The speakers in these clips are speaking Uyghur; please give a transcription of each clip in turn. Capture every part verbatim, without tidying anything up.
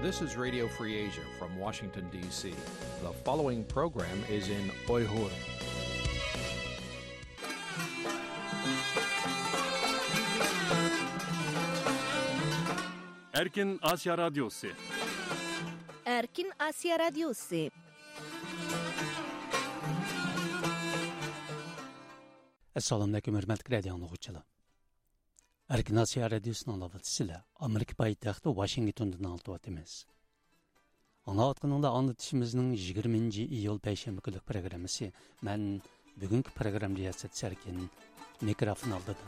This is Radio Free Asia from Washington, D C. The following program is in Uyghur. Erkin Asiya Radyosu. Erkin Asiya Radyosu. Assalomu alaykum, hurmatli radio anglovchilar. Erkin Asiya Radiosuning navbatchisi Amerika poytaxti Washingtondan anglatyapmiz. Anglayotganinglar, anglatishimizning yigirmanchi iyul payshanba kunlik programmasi. Men bugungi programma riyosatchisi Erkin, mikrofon oldida.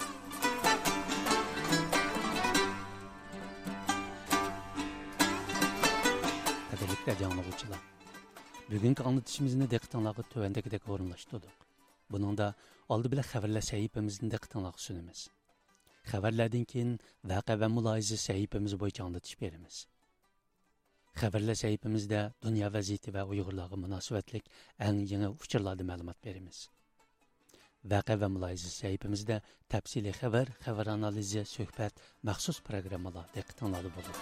Qadrli radio anglovchilar, bugungi anglatishimizni diqqatinglarga tuvandagidek o'rinlashtirdik. Buningda oldi bilan xabarlar sahifamizni diqqatinglarga sunamiz. Xabarlardan keyin vaqa va mulohaza sahifamiz bo'yicha anglatish beramiz. Xabarlar sahifamizda dunyo vaziyati va uyg'urlarga munosabatlik eng yangi uchurlardan ma'lumot beramiz. Vaqa va mulohaza sahifamizda tafsiliy xabar, xabar analizi, suhbat, maxsus programmalar diqqatinglarda bo'ladi.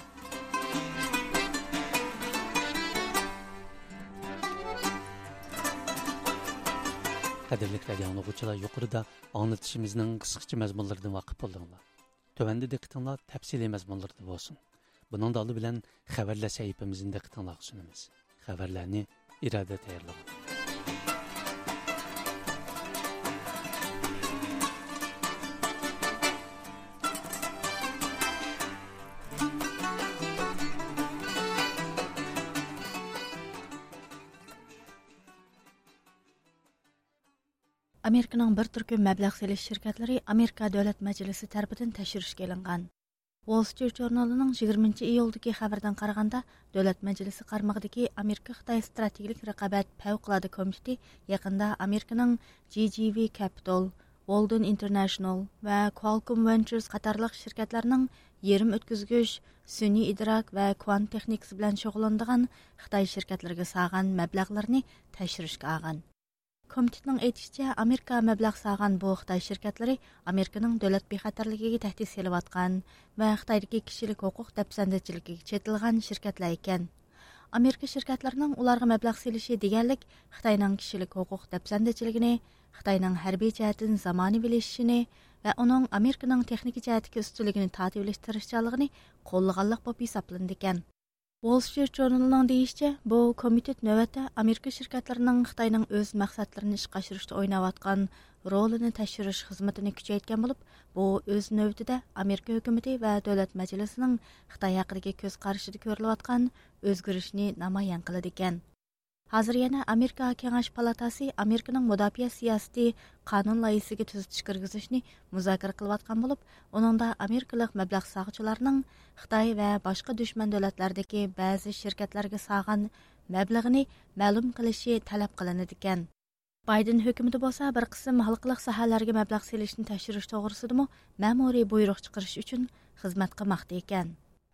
Qadrli radio anglovchilar, yuqorida anglitishimizning qisqacha mazmunlaridan voqif bo'ldinglar. Tövende diqqatinglar təfsili məzmunlarda bolsun. Bunun da alı bilən xəbərlər səhifəmizin diqqatinglarğa sunumuz. Xəbərlərni İradə tayarladı. ئامېرىكىنىڭ بىر تۈركۈم مەبلەغ سېلىش شىركەتلىرى ئامېرىكا دۆلەت مەجلىسى تەرىپىدىن تەكشۈرۈشكە ئېلىنغان. ۋول سترىت ژۇرنىلىنىڭ يىگىرمىنچى ئىيۇلدىكى خەۋىرىدىن قارىغاندا، دۆلەت مەجلىسى قارمىقىدىكى ئامېرىكا خىتاي ستراتېگىيىلىك رىقابەت پەۋقۇلئاددە كومىتېتى يېقىندا ئامېرىكىنىڭ جى جى ۋى كەپىتال، ۋولدېن ئىنتېرنېشنال ۋە كوالكوم ۋېنچۇرز قاتارلىق شىركەتلەرنىڭ يېرىم ئۆتكۈزگۈچ، سۈنئىي ئىدراك ۋە كۋانت تېخنىكىسى بىلەن شۇغۇللىنىدىغان خىتاي شىركەتلىرىگە سالغان مەبلەغلىرىنى تەكشۈرۈشكە ئالغان. كومىتېتنىڭ ئېيتىشىچە، ئامېرىكا مەبلەغ سالغان بۇ خىتاي شىركەتلىرى ئامېرىكىنىڭ دۆلەت بىخەتەرلىكىگە تەھدىت سېلىۋاتقان ۋە خىتايدىكى كىشىلىك ھوقۇق دەپسەندىچىلىكىگە چېتىلغان شىركەتلەر ئىكەن. ئامېرىكا شىركەتلىرىنىڭ ئۇلارغا مەبلەغ سېلىشى دېگەنلىك خىتاينىڭ كىشىلىك ھوقۇق دەپسەندىچىلىكىنى، خىتاينىڭ ھەربىي جەھەتتىن زامانىۋىلىشىشىنى ۋە ئۇنىڭ ئامېرىكىنىڭ تېخنىكا جەھەتتىكى ئۈستۈنلۈكىنى تارتىۋېلىش تىرىشچانلىقىنى قوللىغانلىق بولۇپ ھېسابلىنىدىكەن. ۋول سترىت ژۇرنىلىنىڭ دېيىشىچە، بۇ كومىتېت نۆۋەتتە ئامېرىكا شىركەتلىرىنىڭ خىتاينىڭ ئۆز مەقسەتلىرىنى ئىشقا ئاشۇرۇشتا ئويناۋاتقان رولىنى تەكشۈرۈش خىزمىتىنى كۈچەيتكەن بولۇپ، بۇ ئۆز نۆۋىتىدە ئامېرىكا ھۆكۈمىتى ۋە دۆلەت مەجلىسىنىڭ خىتاي ھەققىدىكى كۆز قارىشىدا كۆرۈلۈۋاتقان ئۆزگىرىشنى نامايان قىلىدىكەن. ھازىر يەنە ئامېرىكا كېڭەش پالاتاسى ئامېرىكىنىڭ مۇداپىئە سىياسىتى قانۇن لايىھىسىگە تۈزىتىش كىرگۈزۈشنى مۇزاكىرە قىلىۋاتقان بولۇپ، ئۇنىڭدا ئامېرىكىلىق مەبلەغ سالغۇچىلارنىڭ خىتاي ۋە باشقا دۈشمەن دۆلەتلەردىكى بەزى شىركەتلەرگە سالغان مەبلىغىنى مەلۇم قىلىشى تەلەپ قىلىنىدىكەن. بايدېن ھۆكۈمىتى بولسا بىر قىسىم ھالقىلىق ساھەلەرگە مەبلەغ سېلىشنى تەكشۈرۈش توغرىسىدىمۇ مەمۇرىي بۇيرۇق چىقىرىش ئۈچۈن خىزمەت قىلماقتا ئىكەن.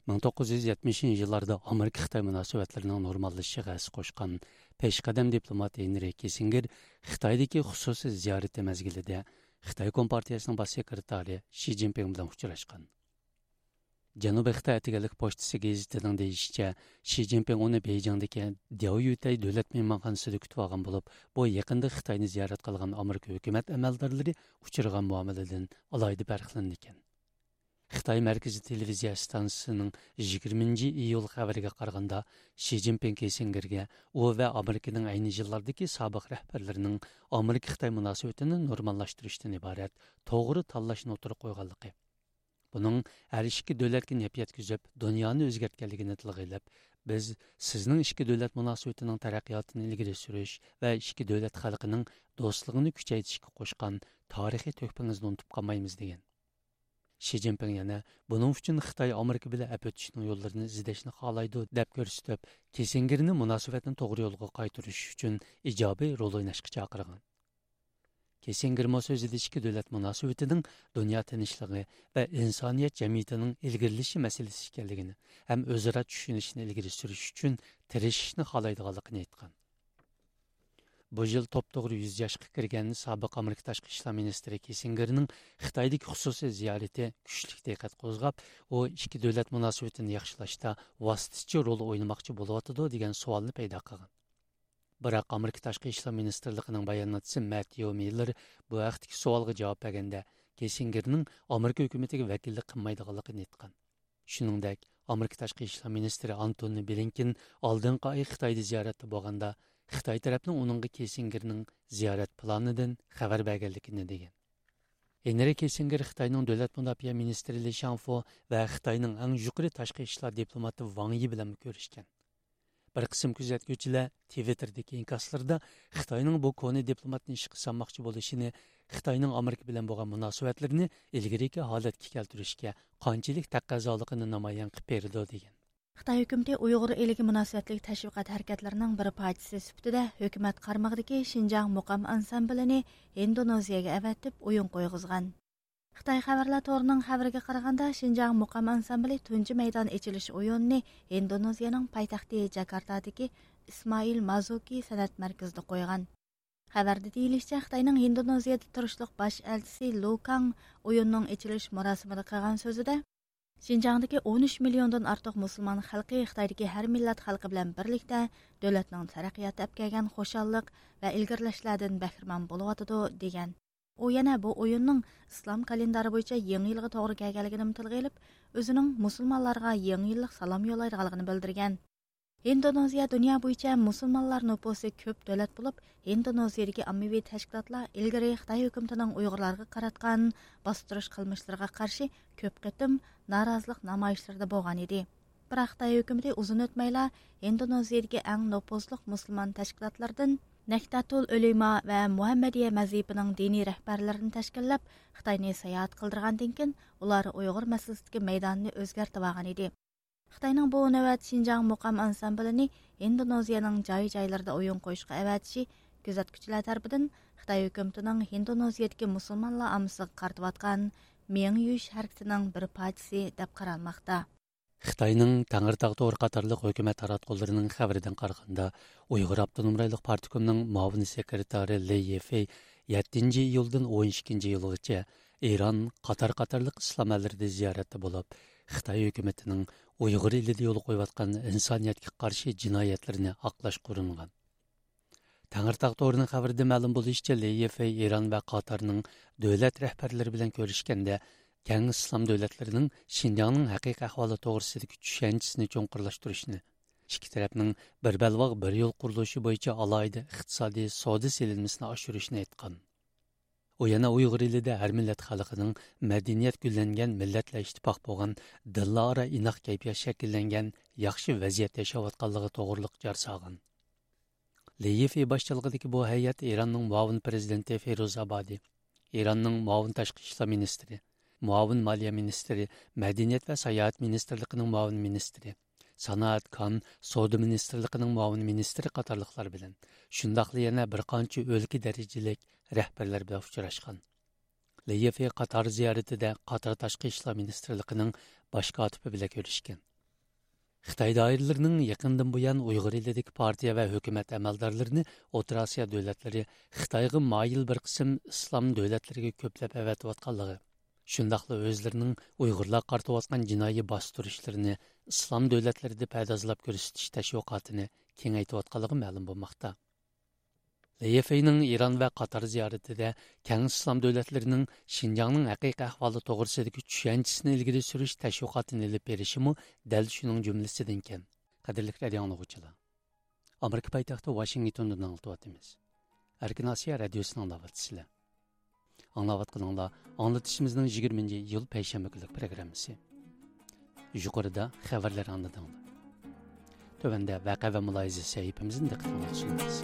مىڭ توققۇز يۈز يەتمىشىنچى يىللاردا ئامېرىكا-خىتاي مۇناسىۋەتلىرىنىڭ نورماللىشىشىغا ھەسسە قوشقان پېشقەدەم دىپلومات ھېنرى كىسسىنگېر خىتايدىكى خۇسۇسىي زىيارىتى مەزگىلىدە خىتاي كومپارتىيىسىنىڭ باش سېكرېتارى شى جىنپىڭ بىلەن ئۇچراشقان. جەنۇبىي خىتاي ئەتىگەنلىك پوچتىسى گېزىتىنىڭ دېيىشىچە، شى جىنپىڭ ئۇنى بېيجىڭدىكى دياۋيۈتەي دۆلەت مېھمانخانىسىدا كۈتۈپ ئالغان بولۇپ، بۇ يېقىندا خىتاينى زىيارەت قىلغان ئامېرىكا ھۆكۈمەت ئەمەلدارلىرى ئۇچرىغان مۇئامىلىدىن ئالاھىدە پەرقلىنىدىكەن. خىتاي مەركىزىي تېلېۋىزىيە ئىستانسىسىنىڭ يىگىرمىنچى ئىيۇل خەۋىرىگە قارىغاندا، شى جىنپىڭ كىسسىنگېرگە ئۇ ۋە ئامېرىكىنىڭ ئەينى يىللاردىكى سابىق رەھبەرلىرىنىڭ ئامېرىكا-خىتاي مۇناسىۋىتىنى نورماللاشتۇرۇشتىن ئىبارەت توغرا تاللاشنى ئوتتۇرىغا قويغانلىقى، بۇنىڭ ھەر ئىككى دۆلەتكە نەپ يەتكۈزۈپ، دۇنيانى ئۆزگەرتكەنلىكىنى تىلغا ئېلىپ، بىز سىزنىڭ ئىككى دۆلەت مۇناسىۋىتىنىڭ تەرەققىياتىنى ئىلگىرى سۈرۈش ۋە ئىككى دۆلەت خەلقىنىڭ دوستلۇقىنى كۈچەيتىشكە قوشقان تارىخىي تۆھپىڭىزنى ئۇنتۇپ قالمايمىز، دېگەن. شى جىنپىڭ يەنە، بۇنىڭ ئۈچۈن خىتاي ئامېرىكا بىلەن ئەپ ئۆتۈشنىڭ يوللىرىنى ئىزدەشنى خالايدۇ، دەپ كۆرسىتىپ، كىسسىنگېرنى مۇناسىۋەتنى توغرا يولغا قايتۇرۇش ئۈچۈن ئىجابىي رول ئويناشقا چاقىرغان. كىسسىنگېرمۇ سۆزىدە ئىككى دۆلەت مۇناسىۋىتىنىڭ دۇنيا تىنچلىقى ۋە ئىنسانىيەت جەمئىيىتىنىڭ ئىلگىرىلىشى مەسىلىسى ئىكەنلىكىنى ھەم ئۆزئارا چۈشىنىشنى ئىلگىرى سۈرۈش ئۈچۈن تىرىشىشنى خالايدىغانلىقىنى ئېيتقان. بۇ يىل توپتوغرا يۈز ياشقا كىرگەن سابىق ئامېرىكا تاشقى ئىشلار مىنىستىرى كىسسىنگېرنىڭ خىتايدىكى خۇسۇسىي زىيارىتى كۈچلۈك دىققەت قوزغاپ، ئۇ ئىككى دۆلەت مۇناسىۋىتىنى ياخشىلاشتا ۋاسىتىچى رول ئوينىماقچى بولۇۋاتىدۇ، دېگەن سوئالنى پەيدا قىلغان. بىراق ئامېرىكا تاشقى ئىشلار مىنىستىرلىقىنىڭ باياناتچىسى مەتيۇ مىللېر بۇ ھەقتىكى سوئالغا جاۋاب بەرگەندە، كىسسىنگېرنىڭ ئامېرىكا ھۆكۈمىتىگە ۋەكىللىك قىلمايدىغانلىقىنى ئېيتقان. شۇنىڭدەك، ئامېرىكا تاشقى ئىشلار مىنىستىرى ئانتونى بلىنكېن ئالدىنقى ئاي خىتايدا زىيارەتتە بولغاندا، خىتاي تەرەپنىڭ ئۇنىڭغا كىسسىنگېرنىڭ زىيارەت پىلانىدىن خەۋەر بەرگەنلىكىنى دېگەن. ھېنرى كىسسىنگېر خىتاينىڭ دۆلەت مۇداپىئە مىنىستىرى لى شاڭفو ۋە خىتاينىڭ ئەڭ يۇقىرى تاشقى ئىشلار دىپلوماتى ۋاڭ يى بىلەنمۇ كۆرۈشكەن. بىر قىسىم كۆزەتكۈچىلەر تىۋىتتېردىكى ئىنكاسلىرىدا خىتاينىڭ بۇ كونا دىپلوماتنى ئىشقا سالماقچى بولۇشىنى، خىتاينىڭ ئامېرىكا بىلەن بولغان مۇناسىۋەتلىرىنى ئىلگىرىكى ھالەتكە كەلتۈرۈشكە قانچىلىك تەقەززالىقىنى نامايان قىلىپ بېرىدۇ، دېگەن. خىتاي ھۆكۈمىتى ئۇيغۇر ئېلىگە مۇناسىۋەتلىك تەشۋىقات ھەرىكەتلىرىنىڭ بىر پارچىسى سۈپىتىدە ھۆكۈمەت قارمىقىدىكى شىنجاڭ مۇقام ئانسامبىلىنى ھىندونېزىيەگە ئەۋەتىپ ئويۇن قويغۇزغان. خىتاي خەۋەرلەر تورىنىڭ خەۋىرىگە قارىغاندا، شىنجاڭ مۇقام ئانسامبىلى تۇنجى مەيدان ئېچىلىش ئويۇنىنى ھىندونېزىيەنىڭ پايتەختى جاكارتادىكى ئىسمائىل مازۇكى سەنئەت مەركىزىدە قويغان. خەۋەردە دېيىلىشىچە، خىتاينىڭ ھىندونېزىيەدە تۇرۇشلۇق باش ئەلچىسى لۇ كاڭ ئويۇننىڭ ئېچىلىش مۇراسىمىدا قىلغان سۆزىدە، شىنجاڭدىكى ئون ئۈچ مىليوندىن ئارتۇق مۇسۇلمان خەلقى خىتايدىكى ھەر مىللەت خەلقى بىلەن بىرلىكتە دۆلەتنىڭ تەرەققىياتى ئەپ كەلگەن خۇشاللىق ۋە ئىلگىرىلەشلەردىن بەھرىمەن بولۇۋاتىدۇ، دېگەن. ئۇ يەنە بۇ ئويۇننىڭ ئىسلام كالېندارى بويىچە يېڭى يىلغا توغرا كەلگەنلىكىنىمۇ تىلغا ئېلىپ، ئۆزىنىڭ مۇسۇلمانلارغا يېڭى يىللىق سالام يوللايدىغانلىقىنى بىلدۈرگەن. ھىندونېزىيە دۇنيا بويىچە مۇسۇلمانلار نوپۇسى كۆپ دۆلەت بولۇپ، ھىندونېزىيىدىكى ئاممىۋى تەشكىلاتلار ئىلگىرى خىتاي ھۆكۈمىتىنىڭ ئۇيغۇرلارغا قاراتقان باستۇرۇش قىلمىشلىرىغا قارشى كۆپ قېتىم نارازىلىق نامايىشلىرىدا بولغان ئىدى. بىراق خىتاي ھۆكۈمىتى ئۇزۇن ئۆتمەيلا ھىندونېزىيىدىكى ئەڭ نوپۇزلۇق مۇسۇلمان تەشكىلاتلاردىن نەھدەتۇل ئۆلىما ۋە مۇھەممەدىيە مەزھىپىنىڭ دىنىي رەھبەرلىرىنى تەشكىللەپ، خىتاينى ساياھەت قىلدۇرغاندىن كېيىن، ئۇلار ئۇيغۇر مەسىلىسىدىكى مەيدانىنى ئۆزگەرتىۋالغان ئىدى. خىتاينىڭ بۇ نۆۋەت شىنجاڭ مۇقام ئانسامبىلىنى ھىندونېزىيەنىڭ جاي-جايلىرىدا ئويۇن قويۇشقا ئەۋەتىشى كۆزەتكۈچىلەر تەرىپىدىن خىتاي ھۆكۈمىتىنىڭ ھىندونېزىيەدىكى مۇسۇلمانلار ئاممىسىغا قارىتىۋاتقان مېڭە يۇيۇش ھەرىكىتىنىڭ بىر پارچىسى دەپ قارالماقتا. خىتاينىڭ تەڭرىتاغ تورى قاتارلىق ھۆكۈمەت تاراتقۇلىرىنىڭ خەۋىرىدىن قارىغاندا، ئۇيغۇر ئاپتونوم رايونلۇق پارتكومنىڭ مۇئاۋىن سېكرېتارى لېي يىفېي يەتتىنچى ئىيۇلدىن ئون ئىككىنچى ئىيۇلغىچە ئىران، قاتار قاتارلىق ئىسلام ئەللىرىدە زىيارەتتە بولۇپ، خىتاي ھۆكۈمىتىنىڭ ئۇيغۇر ئېلىدە يولغا قويۇۋاتقان ئىنسانىيەتكە قارشى جىنايەتلىرىنى ئاقلاشقا ئۇرۇنغان. تەڭرىتاغ تورىنىڭ خەۋىرىدە مەلۇم بولۇشىچە، لېي يىفېي ئىران ۋە قاتارنىڭ دۆلەت رەھبەرلىرى بىلەن كۆرۈشكەندە، كەڭ ئىسلام دۆلەتلىرىنىڭ شىنجاڭنىڭ ھەقىقىي ئەھۋالى توغرىسىدىكى چۈشەنچىسىنى چوڭقۇرلاشتۇرۇشنى، ئىككى تەرەپنىڭ بىر بەلباغ، بىر يول قۇرۇلۇشى بويىچە ئالاھىدە ئىقتىسادىي سودا سېلىنمىسىنى ئاشۇرۇشنى ئېيتقان. ئۇ يەنە ئۇيغۇر ئېلىدە ھەر مىللەت خەلقىنىڭ مەدەنىيەت گۈللەنگەن، مىللەتلەر ئىتتىپاق بولغان، دىنلار ئارا ئىناق كەيپىيات شەكىللەنگەن ياخشى ۋەزىيەتتە ياشاۋاتقانلىقى توغرۇلۇق جار سالغان. لېي يىفېي باشچىلىقىدىكى بۇ ھەيئەت ئىراننىڭ مۇئاۋىن پىرېزىدېنتى فىروز ئابادى، ئىراننىڭ مۇئاۋىن تاشقى ئىشلار مىنىستىرى، مۇئاۋىن مالىيە مىنىستىرى، مەدەنىيەت ۋە ساياھەت مىنىستىرلىقىنىڭ مۇئاۋىن مىنىستىرى، سانائەت، كان، سودا مىنىستىرلىقىنىڭ مۇئاۋىن مىنىستىرى قاتارلىقلار بىلەن، شۇنداقلا يەنە بىر قانچە ئۆلكە دەرىجىلىك رەھبەرلەر بىلەن ئۇچراشقان. لېي يىفېي قاتار زىيارىتىدە قاتار تاشقى ئىشلار مىنىستىرلىقىنىڭ باش كاتىپى بىلەن كۆرۈشكەن. خىتاي دائىرىلىرىنىڭ يېقىندىن بۇيان ئۇيغۇر ئېلىدىكى پارتىيە ۋە ھۆكۈمەت ئەمەلدارلىرىنى ئوتتۇرا ئاسىيا دۆلەتلىرى خىتايغا مايىل بىر قىسىم ئىسلام دۆلەتلىرىگە كۆپلەپ ئەۋەتىۋاتقانلىقى، شۇنداقلا ئۆزلىرىنىڭ ئۇيغۇرلارغا قارىتىۋاتقان جىنايى باستۇرۇشلىرىنى ئىسلام دۆلەتلىرىدە پەردازلاپ كۆرسىتىش تەشۋىقاتىنى كېڭەيتىۋاتقانلىقى مەلۇم بولماقتا. لېي يىفېينىڭ ئىران ۋە قاتار زىيارىتىدە كەڭ ئىسلام دۆلەتلىرىنىڭ شىنجاڭنىڭ ھەقىقىي ئەھۋالى توغرىسىدىكى چۈشەنچىسىنى ئىلگىرى سۈرۈش تەشۋىقاتىنى ئېلىپ بېرىشىمۇ دەل شۇنىڭ جۈملىسىدىكەن. قەدىرلىك رادىئو ئاڭلىغۇچىلار، ئامېرىكا پايتەختى ۋاشىنگتوندىن ئاڭلىتىۋاتىمىز. ئەركىن ئاسىيا رادىيوسىنى ئاڭلاۋاتىسىلەر. ئاڭلاۋاتقىنىڭلار ئاڭلىتىشىمىزنىڭ يىگىرمىنچى ئىيۇل پەيشەنبە كۈنلۈك پروگراممىسى. يۇقىرىدا خەۋەرلەر ئاڭلىدىڭلار. تۆۋەندە ۋەقە ۋە مۇلاھىزە سەھىپىمىزنى دىققىتىڭلارغا سۇنىمىز.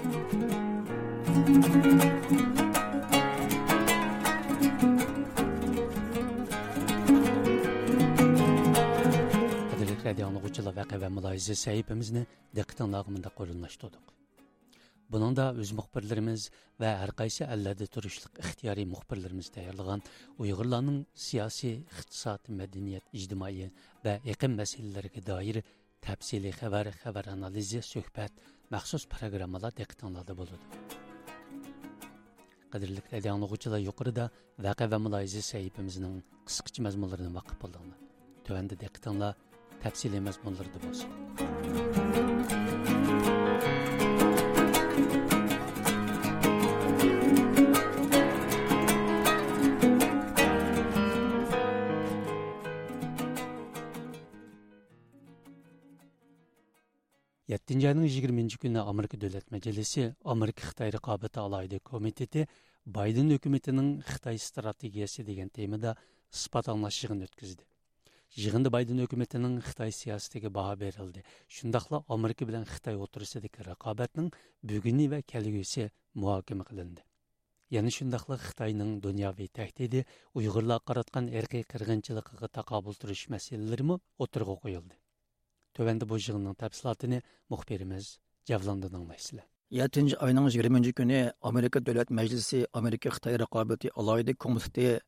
قەدىرلىك رادىئو ئاڭلىغۇچىلار، ۋەقە ۋە مۇلاھىزە سەھىپىمىزنى دىققىتىڭلارغا مۇنداق ئورۇنلاشتۇردۇق. بۇنىڭدا ئۆز مۇخبىرلىرىمىز ۋە ھەر قايسى ئەللەردە تۇرۇشلۇق ئىختىيارىي مۇخبىرلىرىمىز تەييارلىغان ئۇيغۇرلارنىڭ سىياسىي، ئىقتىساد، مەدەنىيەت، ئىجتىمائىي ۋە ئېقىم مەسىلىلىرىگە دائىر تەپسىلىي خەۋەر، خەۋەر ئانالىزى، سۆھبەت، مەخسۇس پروگراممىلار دىققىتىڭلاردا بولىدۇ. قەدىرلىك رادىئو ئاڭلىغۇچىلار، يۇقىرىدا ۋەقە ۋە مۇلاھىزە سەھىپىمىزنىڭ قىسقىچە مەزمۇنلىرىنى ۋاقىپ بولدۇڭلار. تۆۋەندە دىققىتىڭلار تەپسىلىي مەزمۇنلىرىدا بولسۇن. يەتتىنچى ئاينىڭ يىگىرمىنچى كۈنى ئامېرىكا دۆلەت مەجلىسى ئامېرىكا خىتاي رىقابىتى ئالاھىدە كومىتېتى بايدېن ھۆكۈمىتىنىڭ خىتاي ئىستراتېگىيەسى دېگەن تېمىدا ئىسپات ئاڭلاش يىغىنى ئۆتكۈزدى. يىغىندا بايدېن ھۆكۈمىتىنىڭ خىتاي سىياسىتىگە باھا بېرىلدى، شۇنداقلا ئامېرىكا بىلەن خىتاي ئوتتۇرىسىدىكى رىقابەتنىڭ بۈگۈنى ۋە كەلگۈسى مۇھاكىمە قىلىندى. يەنە شۇنداقلا خىتاينىڭ دۇنياۋى تەھدىتى، ئۇيغۇرلارغا قاراتقان ئىرقىي قىرغىنچىلىقىغا تاقابىل تۇرۇش مەسىلىلىرىمۇ ئوتتۇرىغا قويۇلدى. تۆۋەندە بۇ يىغىننىڭ تەپسىلاتىنى مۇخبىرىمىز جەۋلاندىن ئاڭلايسىلەر. يەتتىنچى ئاينىڭ يىگىرمىنچى كۈنى ئامېرىكا دۆلەت مەجلىسى ئامېرىكا خىتاي رىقابىتى ئالاھىدە كومىتېتى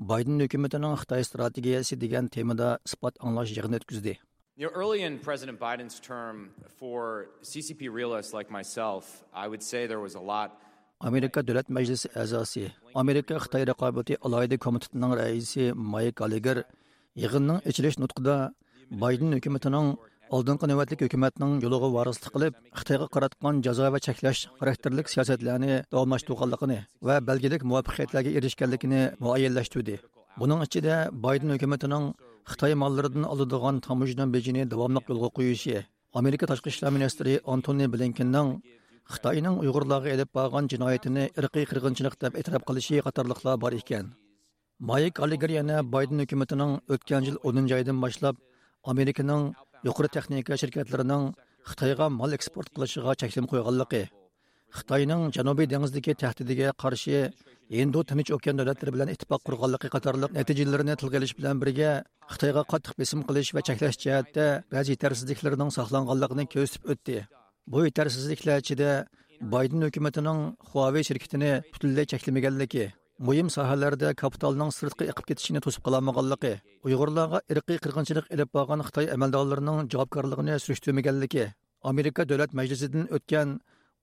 بايدېن ھۆكۈمىتىنىڭ خىتاي ئىستراتېگىيەسى دېگەن تېمىدا ئىسپات ئاڭلاش يىغىنى ئۆتكۈزدى. You know, early in President Biden's term, for C C P realists like myself, I would say there was a lot. ئامېرىكا دۆلەت مەجلىسى ئەزاسى، ئامېرىكا خىتاي رىقابىتى ئالاھىدە كومىتېتىنىڭ رەئىسى مايك گاللېگېر يىغىننىڭ ئېچىلىش نۇتقىدا بايدېن ھۆكۈمىتىنىڭ ئالدىنقى نۆۋەتلىك ھۆكۈمەتنىڭ يولىغا ۋارىسلىق قىلىپ، خىتايغا قاراتقان جازا ۋە چەكلەش خاراكتېرلىك سىياسەتلەرنى داۋاملاشتۇرغانلىقىنى ۋە بەلگىلىك مۇۋەپپەقىيەتلەرگە ئېرىشكەنلىكىنى مۇئەييەنلەشتۈردى. بۇنىڭ ئىچىدە بايدېن ھۆكۈمىتىنىڭ خىتاي ماللىرىدىن ئالىدىغان تاموژنا بېجىنى داۋاملىق يولغا قويۇشى، ئامېرىكا تاشقى ئىشلار مىنىستىرى ئانتونى بلىنكېننىڭ خىتاينىڭ ئۇيغۇرلارغا ئېلىپ بارغان جىنايىتىنى ئىرقىي قىرغىنچىلىق دەپ ئېتىراپ قىلىشى قاتارلىقلار بار ئىكەن. مايك گاللېگېر يەنە بايدېن ھۆكۈمىتىنىڭ ئۆتكەن يىل ئونىنچى ئايدىن باشلاپ ئامېرىكىنىڭ يۇقىرى تېخنىكا شىركەتلىرىنىڭ خىتايغا مال ئېكسپورت قىلىشىغا چەكلىمە قويغانلىقى، خىتاينىڭ جەنۇبىي دېڭىزدىكى تەھدىتىگە قارشى ھىندى تىنچ ئوكيان دۆلەتلىرى بىلەن ئىتتىپاق قۇرغانلىقى قاتارلىق نەتىجىلىرىنى تىلغا ئېلىش بىلەن بىرگە، خىتايغا قاتتىق بېسىم قىلىش ۋە چەكلەش جەھەتتە بەزى يېتەرسىزلىكلىرىنىڭ ساقلانغانلىقىنى كۆرسىتىپ ئۆتتى. بۇ يېتەرسىزلىكلەر ئىچىدە بايدېن ھۆكۈمىتىنىڭ خۇاۋېي شىركىتىنى پۈتۈنلەي چەكلىمىگەنلىكى، مۇھىم ساھەلەردە كاپىتالنىڭ سىرتقا ئېقىپ كېتىشىنى توسۇپ قالالمىغانلىقى، ئۇيغۇرلارغا ئىرقىي قىرغىنچىلىق ئېلىپ بارغان خىتاي ئەمەلدارلىرىنىڭ جاۋابكارلىقىنى سۈرۈشتۈرمىگەنلىكى، ئامېرىكا دۆلەت مەجلىسىدىن ئۆتكەن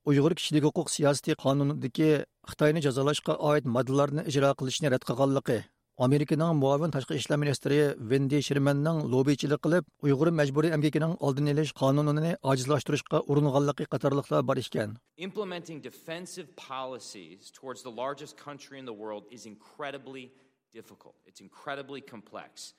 ئۇيغۇر كىشىلىك ھوقۇق سىياسىتى قانۇنىدىكى خىتاينى جازالاشقا ئائىت ماددىلارنى ئىجرا قىلىشنى رەت قىلغانلىقى، ئامېرىكىنىڭ مۇئاۋىن تاشقى ئىشلار مىنىستىرى ۋېندى شېرمەننىڭ لوببىچىلىق قىلىپ، ئۇيغۇر مەجبۇرىي ئەمگىكىنىڭ ئالدىنى ئېلىش قانۇنىنى ئاجىزلاشتۇرۇشقا ئۇرۇنغانلىقى قاتارلىقلار بار ئىكەن. Implementing defensive policies towards the largest country in the world is incredibly difficult. It's incredibly complex.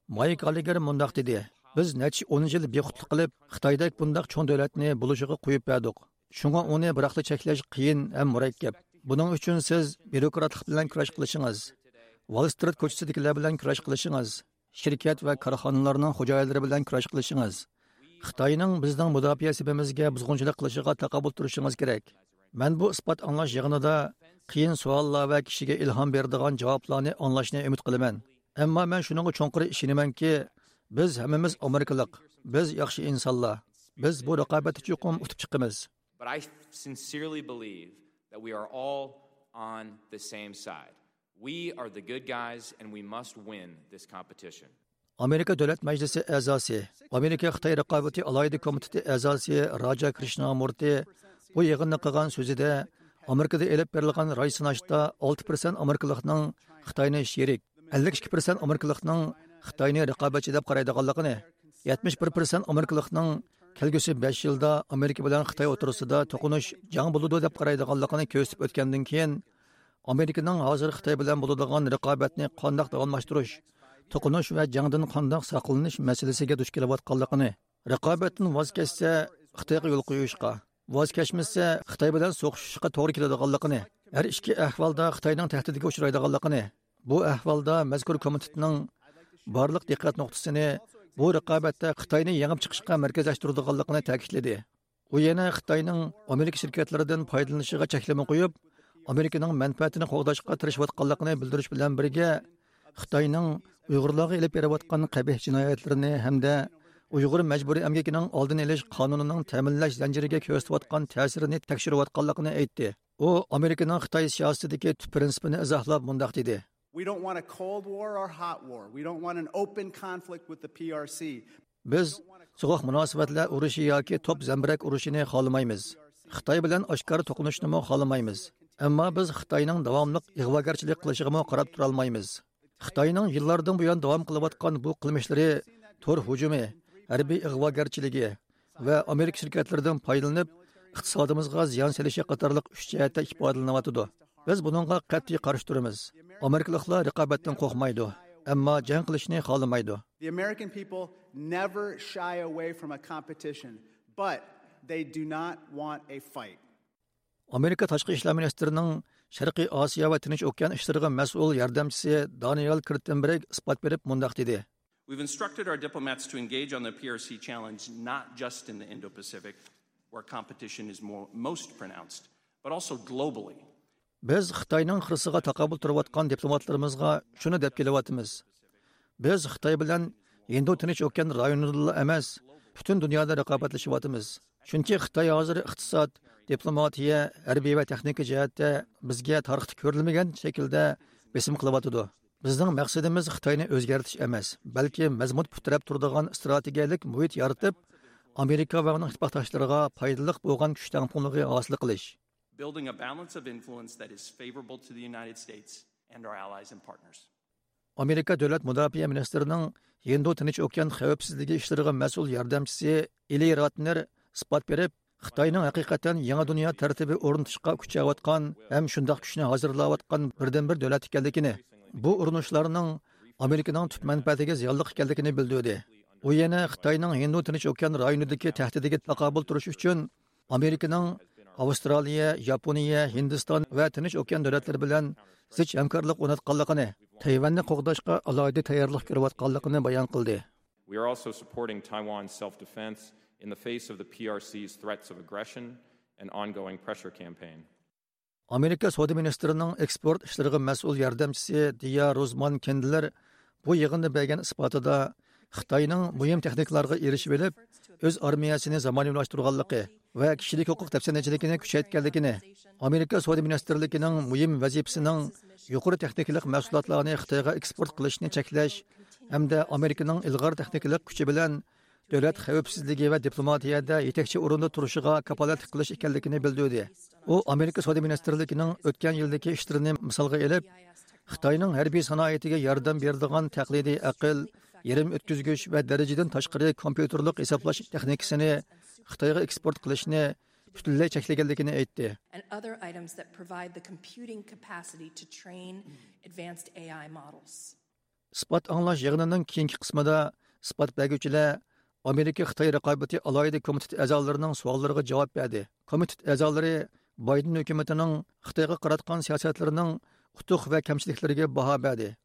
مايك گاللېگېر مۇنداق دېدى: بىز نەچچە ئون يىل بىخۇدلۇق قىلىپ، خىتايدەك بۇنداق چوڭ دۆلەتنى بولۇشىغا قويۇپ بەردۇق. شۇڭا ئۇنى بىراقلا چەكلەش قىيىن ھەم مۇرەككەپ. بۇنىڭ ئۈچۈن سىز بيۇروكراتلىق بىلەن كۈرەش قىلىشىڭىز، ۋال سترىت كوچىسىدىكىلەر بىلەن كۈرەش قىلىشىڭىز، شىركەت ۋە كارخانىلارنىڭ خوجايىنلىرى بىلەن كۈرەش قىلىشىڭىز، خىتاينىڭ بىزنىڭ مۇداپىئە سېپىمىزگە بۇزغۇنچىلىق قىلىشىغا تاقابىل تۇرۇشىڭىز كېرەك. مەن بۇ ئىسپات ئاڭلاش يىغىنىدا قىيىن سوئاللار ۋە كىشىگە ئىلھام بېرىدىغان جاۋابلارنى ئاڭلاشنى ئۈمىد قىلىمەن. ئەمما مەن شۇنىڭغا چوڭقۇر ئىشىنىمەنكى، بىز ھەممىمىز ئامېرىكىلىق، بىز ياخشى ئىنسانلار، بىز بۇ رىقابەتتە چوقۇم ئۇتۇپ چىقىمىز. But I sincerely believe that we are all on the same side. We are the good guys and we must win this competition. ئامېرىكا دۆلەت مەجلىسى ئەزاسى، ئامېرىكا خىتاي رىقابىتى ئالاھىدە كومىتېتى ئەزاسى راجا كرىشنامۇرتى بۇ يىغىندا قىلغان سۆزىدە، ئامېرىكىدا ئېلىپ بېرىلغان راي سىناشتا ئالتە پىرسەنت ئامېرىكىلىقنىڭ خىتاينى شېرىك، ئەللىك ئىككى پىرسەنت ئامېرىكىلىقنىڭ خىتاينى رىقابەتچى دەپ قارايدىغانلىقىنى، يەتمىش بىر پىرسەنت ئامېرىكىلىقنىڭ كەلگۈسى بەش يىلدا ئامېرىكا بىلەن خىتاي ئوتتۇرىسىدا توقۇنۇش، جەڭ بولىدۇ دەپ قارايدىغانلىقىنى كۆرسىتىپ ئۆتكەندىن كېيىن، ئامېرىكىنىڭ ھازىر خىتاي بىلەن بولىدىغان رىقابەتنى قانداق داۋاملاشتۇرۇش، توقۇنۇش ۋە جەڭدىن قانداق ساقلىنىش مەسىلىسىگە دۇچ كېلىۋاتقانلىقىنى، رىقابەتتىن ۋاز كەچسە، خىتايغا يول قويۇشقا، ۋاز كەچمىسە، خىتاي بىلەن سوقۇشۇشقا توغرا كېلىدىغانلىقىنى، ھەر ئىككى ئەھۋالدا خىتاينىڭ تەھدىتىگە ئۇچرايدىغانلىقىنى، بۇ ئەھۋالدا مەزكۇر كومىتېتنىڭ بارلىق دىققەت نۇقتىسىنى بۇ رىقابەتتە خىتاينى يېڭىپ چىقىشقا مەركەزلەشتۈرىدىغانلىقىنى تەكىتلىدى. ئۇ يەنە خىتاينىڭ ئامېرىكا شىركەتلىرىدىن پايدىلىنىشىغا چەكلىمە قويۇپ، ئامېرىكىنىڭ مەنپەئەتىنى قوغداشقا تىرىشىۋاتقانلىقىنى بىلدۈرۈش بىلەن بىرگە، خىتاينىڭ ئۇيغۇرلارغا ئېلىپ بېرىۋاتقان قەبىھ جىنايەتلىرىنى ھەمدە ئۇيغۇر مەجبۇرىي ئەمگىكىنىڭ ئالدىنى ئېلىش قانۇنىنىڭ تەمىنلەش زەنجىرىگە كۆرسىتىۋاتقان تەسىرىنى تەكشۈرۈۋاتقانلىقىنى ئېيتتى. ئۇ ئامېرىكىنىڭ خىتاي سىياسىتىدىكى تۈپ پىرىنسىپىنى ئىزاھلاپ مۇنداق دېدى. We don't want a cold war or hot war. We don't want an open conflict with the P R C. بىز سوغۇق مۇناسىۋەتلەر ئۇرۇشى ياكى توپ زەمبىرەك ئۇرۇشىنى خالىمايمىز. خىتاي بىلەن ئاشكارا توقۇنۇشنىمۇ خالىمايمىز. ئەمما بىز خىتاينىڭ داۋاملىق ئىغۋاگەرچىلىك قىلىشىغىمۇ قاراپ تۇرالمايمىز. خىتاينىڭ يىللاردىن بۇيان داۋام قىلىۋاتقان بۇ قىلمىشلىرى، تور ھۇجۇمى، ھەربىي ئىغۋاگەرچىلىكى ۋە ئامېرىكا شىركەتلىرىدىن پايدىلىنىپ، ئىقتىسادىمىزغا زىيان سېلىشى قاتارلىق ئۈچ جەھەتتە ئىپادىلىنىۋاتىدۇ. بىز بۇنىڭغا قەتئىي قارشى تۇرىمىز. ئامېرىكىلىقلار رىقابەتتىن قورقمايدۇ، ئەمما جەڭ قىلىشنى خالىمايدۇ. The American people never shy away from a competition, but they do not want a fight. ئامېرىكا تاشقى ئىشلار مىنىستىرىنىڭ شەرقىي ئاسىيا ۋە تىنچ ئوكيان ئىشلىرىغا مەسئۇل ياردەمچىسى دانىيال كىرتېنبېرگ ئىسپات بېرىپ مۇنداق دېدى. We've instructed our diplomats to engage on the P R C challenge not just in the Indo-Pacific, where competition is more, most pronounced, but also globally. بىز خىتاينىڭ خىرىسىغا تاقابىل تۇرۇۋاتقان دىپلوماتلىرىمىزغا شۇنى دەپ كېلىۋاتىمىز. بىز خىتاي بىلەن ھىندى تىنچ ئوكيان رايونىدىلا ئەمەس، پۈتۈن دۇنيادا رىقابەتلىشىۋاتىمىز. چۈنكى خىتاي ھازىر ئىقتىساد، دىپلوماتىيە، ھەربىي ۋە تېخنىكا جەھەتتە بىزگە تارىختا كۆرۈلمىگەن شەكىلدە بېسىم قىلىۋاتىدۇ. بىزنىڭ مەقسىتىمىز خىتاينى ئۆزگەرتىش ئەمەس، بەلكى مەزمۇت پۇت تىرەپ تۇرىدىغان ئىستراتېگىيەلىك مۇھىت يارىتىپ، ئامېرىكا ۋە ئۇنىڭ ئىتتىپاقداشلىرىغا پايدىلىق بولغان كۈچ تەڭپۇڭلۇقى ھاسىل قىلىش. Building a balance of influence that is favorable to the United States and our allies and partners. ئامېرىكا دۆلەت مۇداپىئە مىنىستىرىنىڭ ھىندى تىنچ ئوكيان خەۋپسىزلىكى ئىشلىرىغا مەسئۇل ياردەمچىسى ئېلى راتنېر ئىسپات بېرىپ، خىتاينىڭ ھەقىقەتەن يېڭى دۇنيا تەرتىپى ئورنىتىشقا كۈچەۋاتقان ھەم شۇنداق كۈچنى ھازىرلاۋاتقان بىردىنبىر دۆلەت ئىكەنلىكىنى، بۇ ئۇرۇنۇشلارنىڭ ئامېرىكىنىڭ تۈپ مەنپەئەتىگە زىيانلىق ئىكەنلىكىنى بىلدۈردى. ئۇ يەنە خىتاينىڭ ھىندى تىنچ ئوكيان رايونىدىكى تەھدىتىگە تاقابىل تۇرۇش ئۈچۈن ئامېرىكىنىڭ ئاۋسترالىيە، ياپونىيە، ھىندىستان ۋە تىنچ ئوكيان دۆلەتلىرى بىلەن زىچ ھەمكارلىق ئورناتقانلىقىنى، تەيۋەننى قوغداشقا ئالاھىدە تەييارلىق كۆرۈۋاتقانلىقىنى بايان قىلدى. We are also supporting Taiwan's self-defense in the face of the P R C's threats of aggression and ongoing pressure campaign. ئامېرىكا سودا مىنىستىرىنىڭ ئېكسپورت ئىشلىرىغا مەسئۇل ياردەمچىسى دىيا روزمان كېندلېر بۇ يىغىندا بەرگەن ئىسپاتىدا خىتاينىڭ مۇھىم تېخنىكىلارغا ئېرىشىۋېلىپ، ئۆز ئارمىيەسىنى زامانىۋىلاشتۇرغانلىقى ۋە كىشىلىك ھوقۇق دەپسەندىچىلىكىنى كۈچەيتكەنلىكىنى، ئامېرىكا سودا مىنىستىرلىكىنىڭ مۇھىم ۋەزىپىسىنىڭ يۇقىرى تېخنىكىلىق مەھسۇلاتلارنى خىتايغا ئېكسپورت قىلىشنى چەكلەش ھەمدە ئامېرىكىنىڭ ئىلغار تېخنىكىلىق كۈچى بىلەن دۆلەت خەۋپسىزلىكى ۋە دىپلوماتىيەدە يېتەكچى ئورۇندا تۇرۇشىغا كاپالەتلىك قىلىش ئىكەنلىكىنى بىلدۈردى. ئۇ ئامېرىكا سودا مىنىستىرلىكىنىڭ ئۆتكەن يىلدىكى ئىشلىرىنى مىسالغا ئېلىپ، خىتاينىڭ ھەربىي سانائىتىگە ياردەم بېرىدىغان تەقلىدىي ئەقىل، يېرىم ئۆتكۈزگۈچ ۋە دەرىجىدىن تاشقىرى كومپيۇتېرلىق ھېسابلاش تېخنىكىسىنى خىتايغا ئېكسپورت قىلىشنى پۈتۈنلەي چەكلىگەنلىكىنى ئېيتتى. And other items that provide the computing capacity to train advanced A I models. ئىسپات ئاڭلاش يىغىنىنىڭ كېيىنكى قىسمىدا ئىسپات بەرگۈچىلەر ئامېرىكا خىتاي رىقابىتى ئالاھىدە كومىتېتى ئەزالىرىنىڭ سوئاللىرىغا جاۋاب بەردى. كومىتېت ئەزالىرى بايدېن ھۆكۈمىتىنىڭ خىتايغا قاراتقان سىياسەتلىرىنىڭ ئۇتۇق ۋە كەمچىلىكلىرىگە باھا بەردى،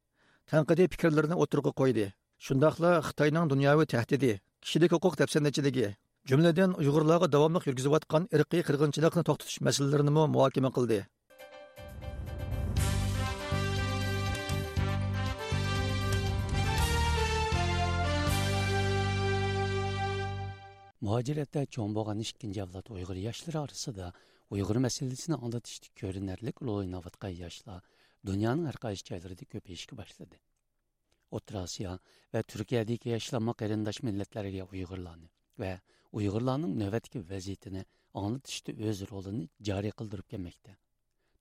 تەنقىدىي پىكىرلىرىنى ئوتتۇرىغا قويدى. شۇنداقلا خىتاينىڭ دۇنياۋى تەھدىتى، كىشىلىك ھوقۇق دەپسەندىچىلىكى، جۈملىدىن ئۇيغۇرلارغا داۋاملىق يۈرگۈزۈۋاتقان ئىرقىي قىرغىنچىلىقنى توختىتىش مەسىلىلىرىنىمۇ مۇھاكىمە قىلدى. مۇھاجىرەتتە چوڭ بولغان ئىككىنچى ئەۋلاد ئۇيغۇر ياشلىرى ئارىسىدا ئۇيغۇر مەسىلىسىنى ئاڭلىتىشتا كۆرۈنەرلىك رول ئويناۋاتقان ياشلار دۇنيانىڭ ھەر قايسى جايلىرىدا كۆپىيىشكە باشلىدى. ئوتتۇرا ئاسىيا ۋە تۈركىيەدىكى ياشلارمۇ قېرىنداش مىللەتلەرگە ئۇيغۇرلارنى ۋە ئۇيغۇرلارنىڭ نۆۋەتتىكى ۋەزىيىتىنى ئاڭلىتىشتا ئۆز رولىنى جارى قىلدۇرۇپ كەلمەكتە.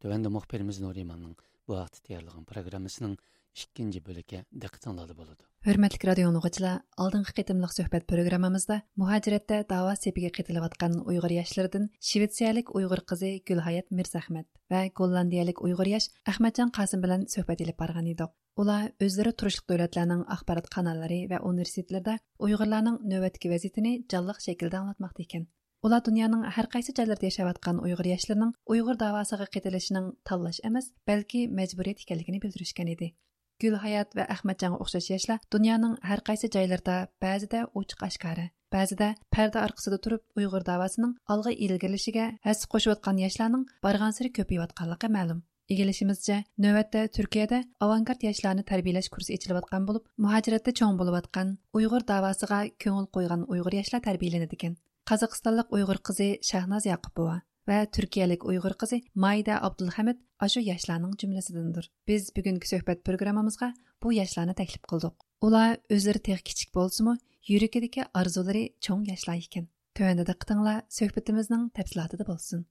تۆۋەندە مۇخبىرىمىز نۇرىماننىڭ بۇ ھەقتە تەييارلىغان پروگراممىسىنىڭ ئىككىنچى بۆلىكى دىققىتىڭلاردا بولىدۇ. ھۆرمەتلىك رادىيو ئاڭلىغۇچىلار، ئالدىنقى قېتىملىق سۆھبەت پروگراممىمىزدا مۇھاجىرەتتە داۋا سېپىگە قېتىلىۋاتقان ئۇيغۇر ياشلىرىدىن شىۋېتسىيەلىك ئۇيغۇر قىزى گۈلھايات مىرزەخمەت ۋە گوللاندىيەلىك ئۇيغۇر ياش ئەخمەتجان قاسىم بىلەن سۆھبەت ئېلىپ بارغان ئىدۇق. ئۇلار ئۆزلىرى تۇرۇشلۇق دۆلەتلەرنىڭ ئاخبارات قاناللىرى ۋە ئۇنىۋېرسىتېتلىرىدا ئۇيغۇرلارنىڭ نۆۋەتتىكى ۋەزىيىتىنى جانلىق شەكىلدە ئاڭلاتماقتا ئىكەن. ئۇلار دۇنيانىڭ ھەر قايسى جايلىرىدا ياشاۋاتقان ئۇيغۇر ياشلىرىنىڭ ئۇيغۇر داۋاسىغا قېتىلىشىنىڭ تاللاش ئەمەس، بەلكى مەجبۇرىيەت ئىكەنلىكىنى بىلدۈرۈشكەن ئىدى. گۈلھايات ۋە ئەخمەتجانغا ئوخشاش ياشلار دۇنيانىڭ ھەر قايسى جايلىرىدا بەزىدە ئوچۇق ئاشكارا، بەزىدە پەردە ئارقىسىدا تۇرۇپ ئۇيغۇر داۋاسىنىڭ ئالغا ئىلگىرىلىشىگە ھەسسە قوشۇۋاتقان ياشلارنىڭ بارغانسېرى كۆپىيىۋاتقانلىقى مەلۇم. ئىگىلىشىمىزچە، نۆۋەتتە تۈركىيەدە ئاۋانگارت ياشلارنى تەربىيەلەش كۇرسى ئېچىلىۋاتقان بولۇپ، مۇھاجىرەتتە چوڭ بولۇۋاتقان، ئۇيغۇر داۋاسىغا كۆڭۈل قويغان ئۇيغۇر ياشلار تەربىيەلىنىدىكەن. قازاقىستانلىق ئۇيغۇر قىزى شاھناز ياقۇپوۋا ۋە تۈركىيەلىك ئۇيغۇر قىزى مايدە ئابدۇلھەمىد ئاشۇ ياشلارنىڭ جۈملىسىدىندۇر. بىز بۈگۈنكى سۆھبەت پروگراممىمىزغا بۇ ياشلارنى تەكلىپ قىلدۇق. ئۇلار ئۆزلىرى تېخى كىچىك بولسىمۇ، يۈرىكىدىكى ئارزۇلىرى چوڭ ياشلار ئىكەن. تۆۋەندە دىققىتىڭلار سۆھبىتىمىزنىڭ تەپسىلاتىدا بولسۇن.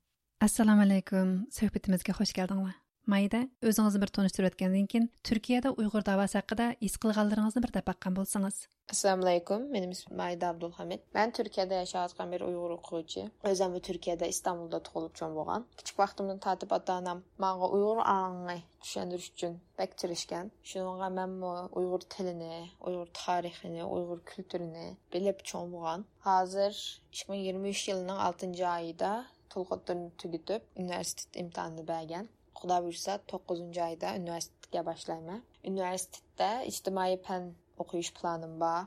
ئەسسالامۇئەلەيكۇم، سۆھبىتىمىزگە خۇش كەلدىڭلار. مايدا، ئۆزىڭىزنى بىر تونۇشتۇرۇۋەتكەندىن كېيىن، تۈركىيەدە ئۇيغۇر داۋاسى ھەققىدە ھېس قىلغانلىرىڭىزنى بىر دەپ باققان بولسىڭىز. ئەسسالامۇئەلەيكۇم، مېنىڭ ئىسمىم مايدا ئابدۇلھەمىد. مەن تۈركىيەدە ياشاۋاتقان بىر ئۇيغۇر ئوقۇغۇچى. ئۆزۈممۇ تۈركىيەدە، ئىستانبۇلدا تۇغۇلۇپ چوڭ بولغان. كىچىك ۋاقتىمدىن تارتىپ ئاتا-ئانام ماڭا ئۇيغۇر ئاڭىنى چۈشەندۈرۈش ئۈچۈن بەك تىرىشكەن. شۇنىڭغا مەنمۇ ئۇيغۇر تىلىنى، ئۇيغۇر تارىخىنى، ئۇيغۇر كۈلتۈرىنى بىلىپ چوڭ بولغان. ھازىر ئىككى مىڭ يىگىرمە ئۈچ يىلىنىڭ ئالتىنچى ئايىدا تولۇقتۇرنى تۈگىتىپ، ئۇنىۋېرسىتېت ئىمتىھانىنى بەرگەن. خۇدا بۇيرۇسا، توققۇزىنچى ئايدا ئۇنىۋېرسىتېتكە باشلايمەن. ئۇنىۋېرسىتېتتا ئىجتىمائىي پەن ئوقۇش پىلانىم بار.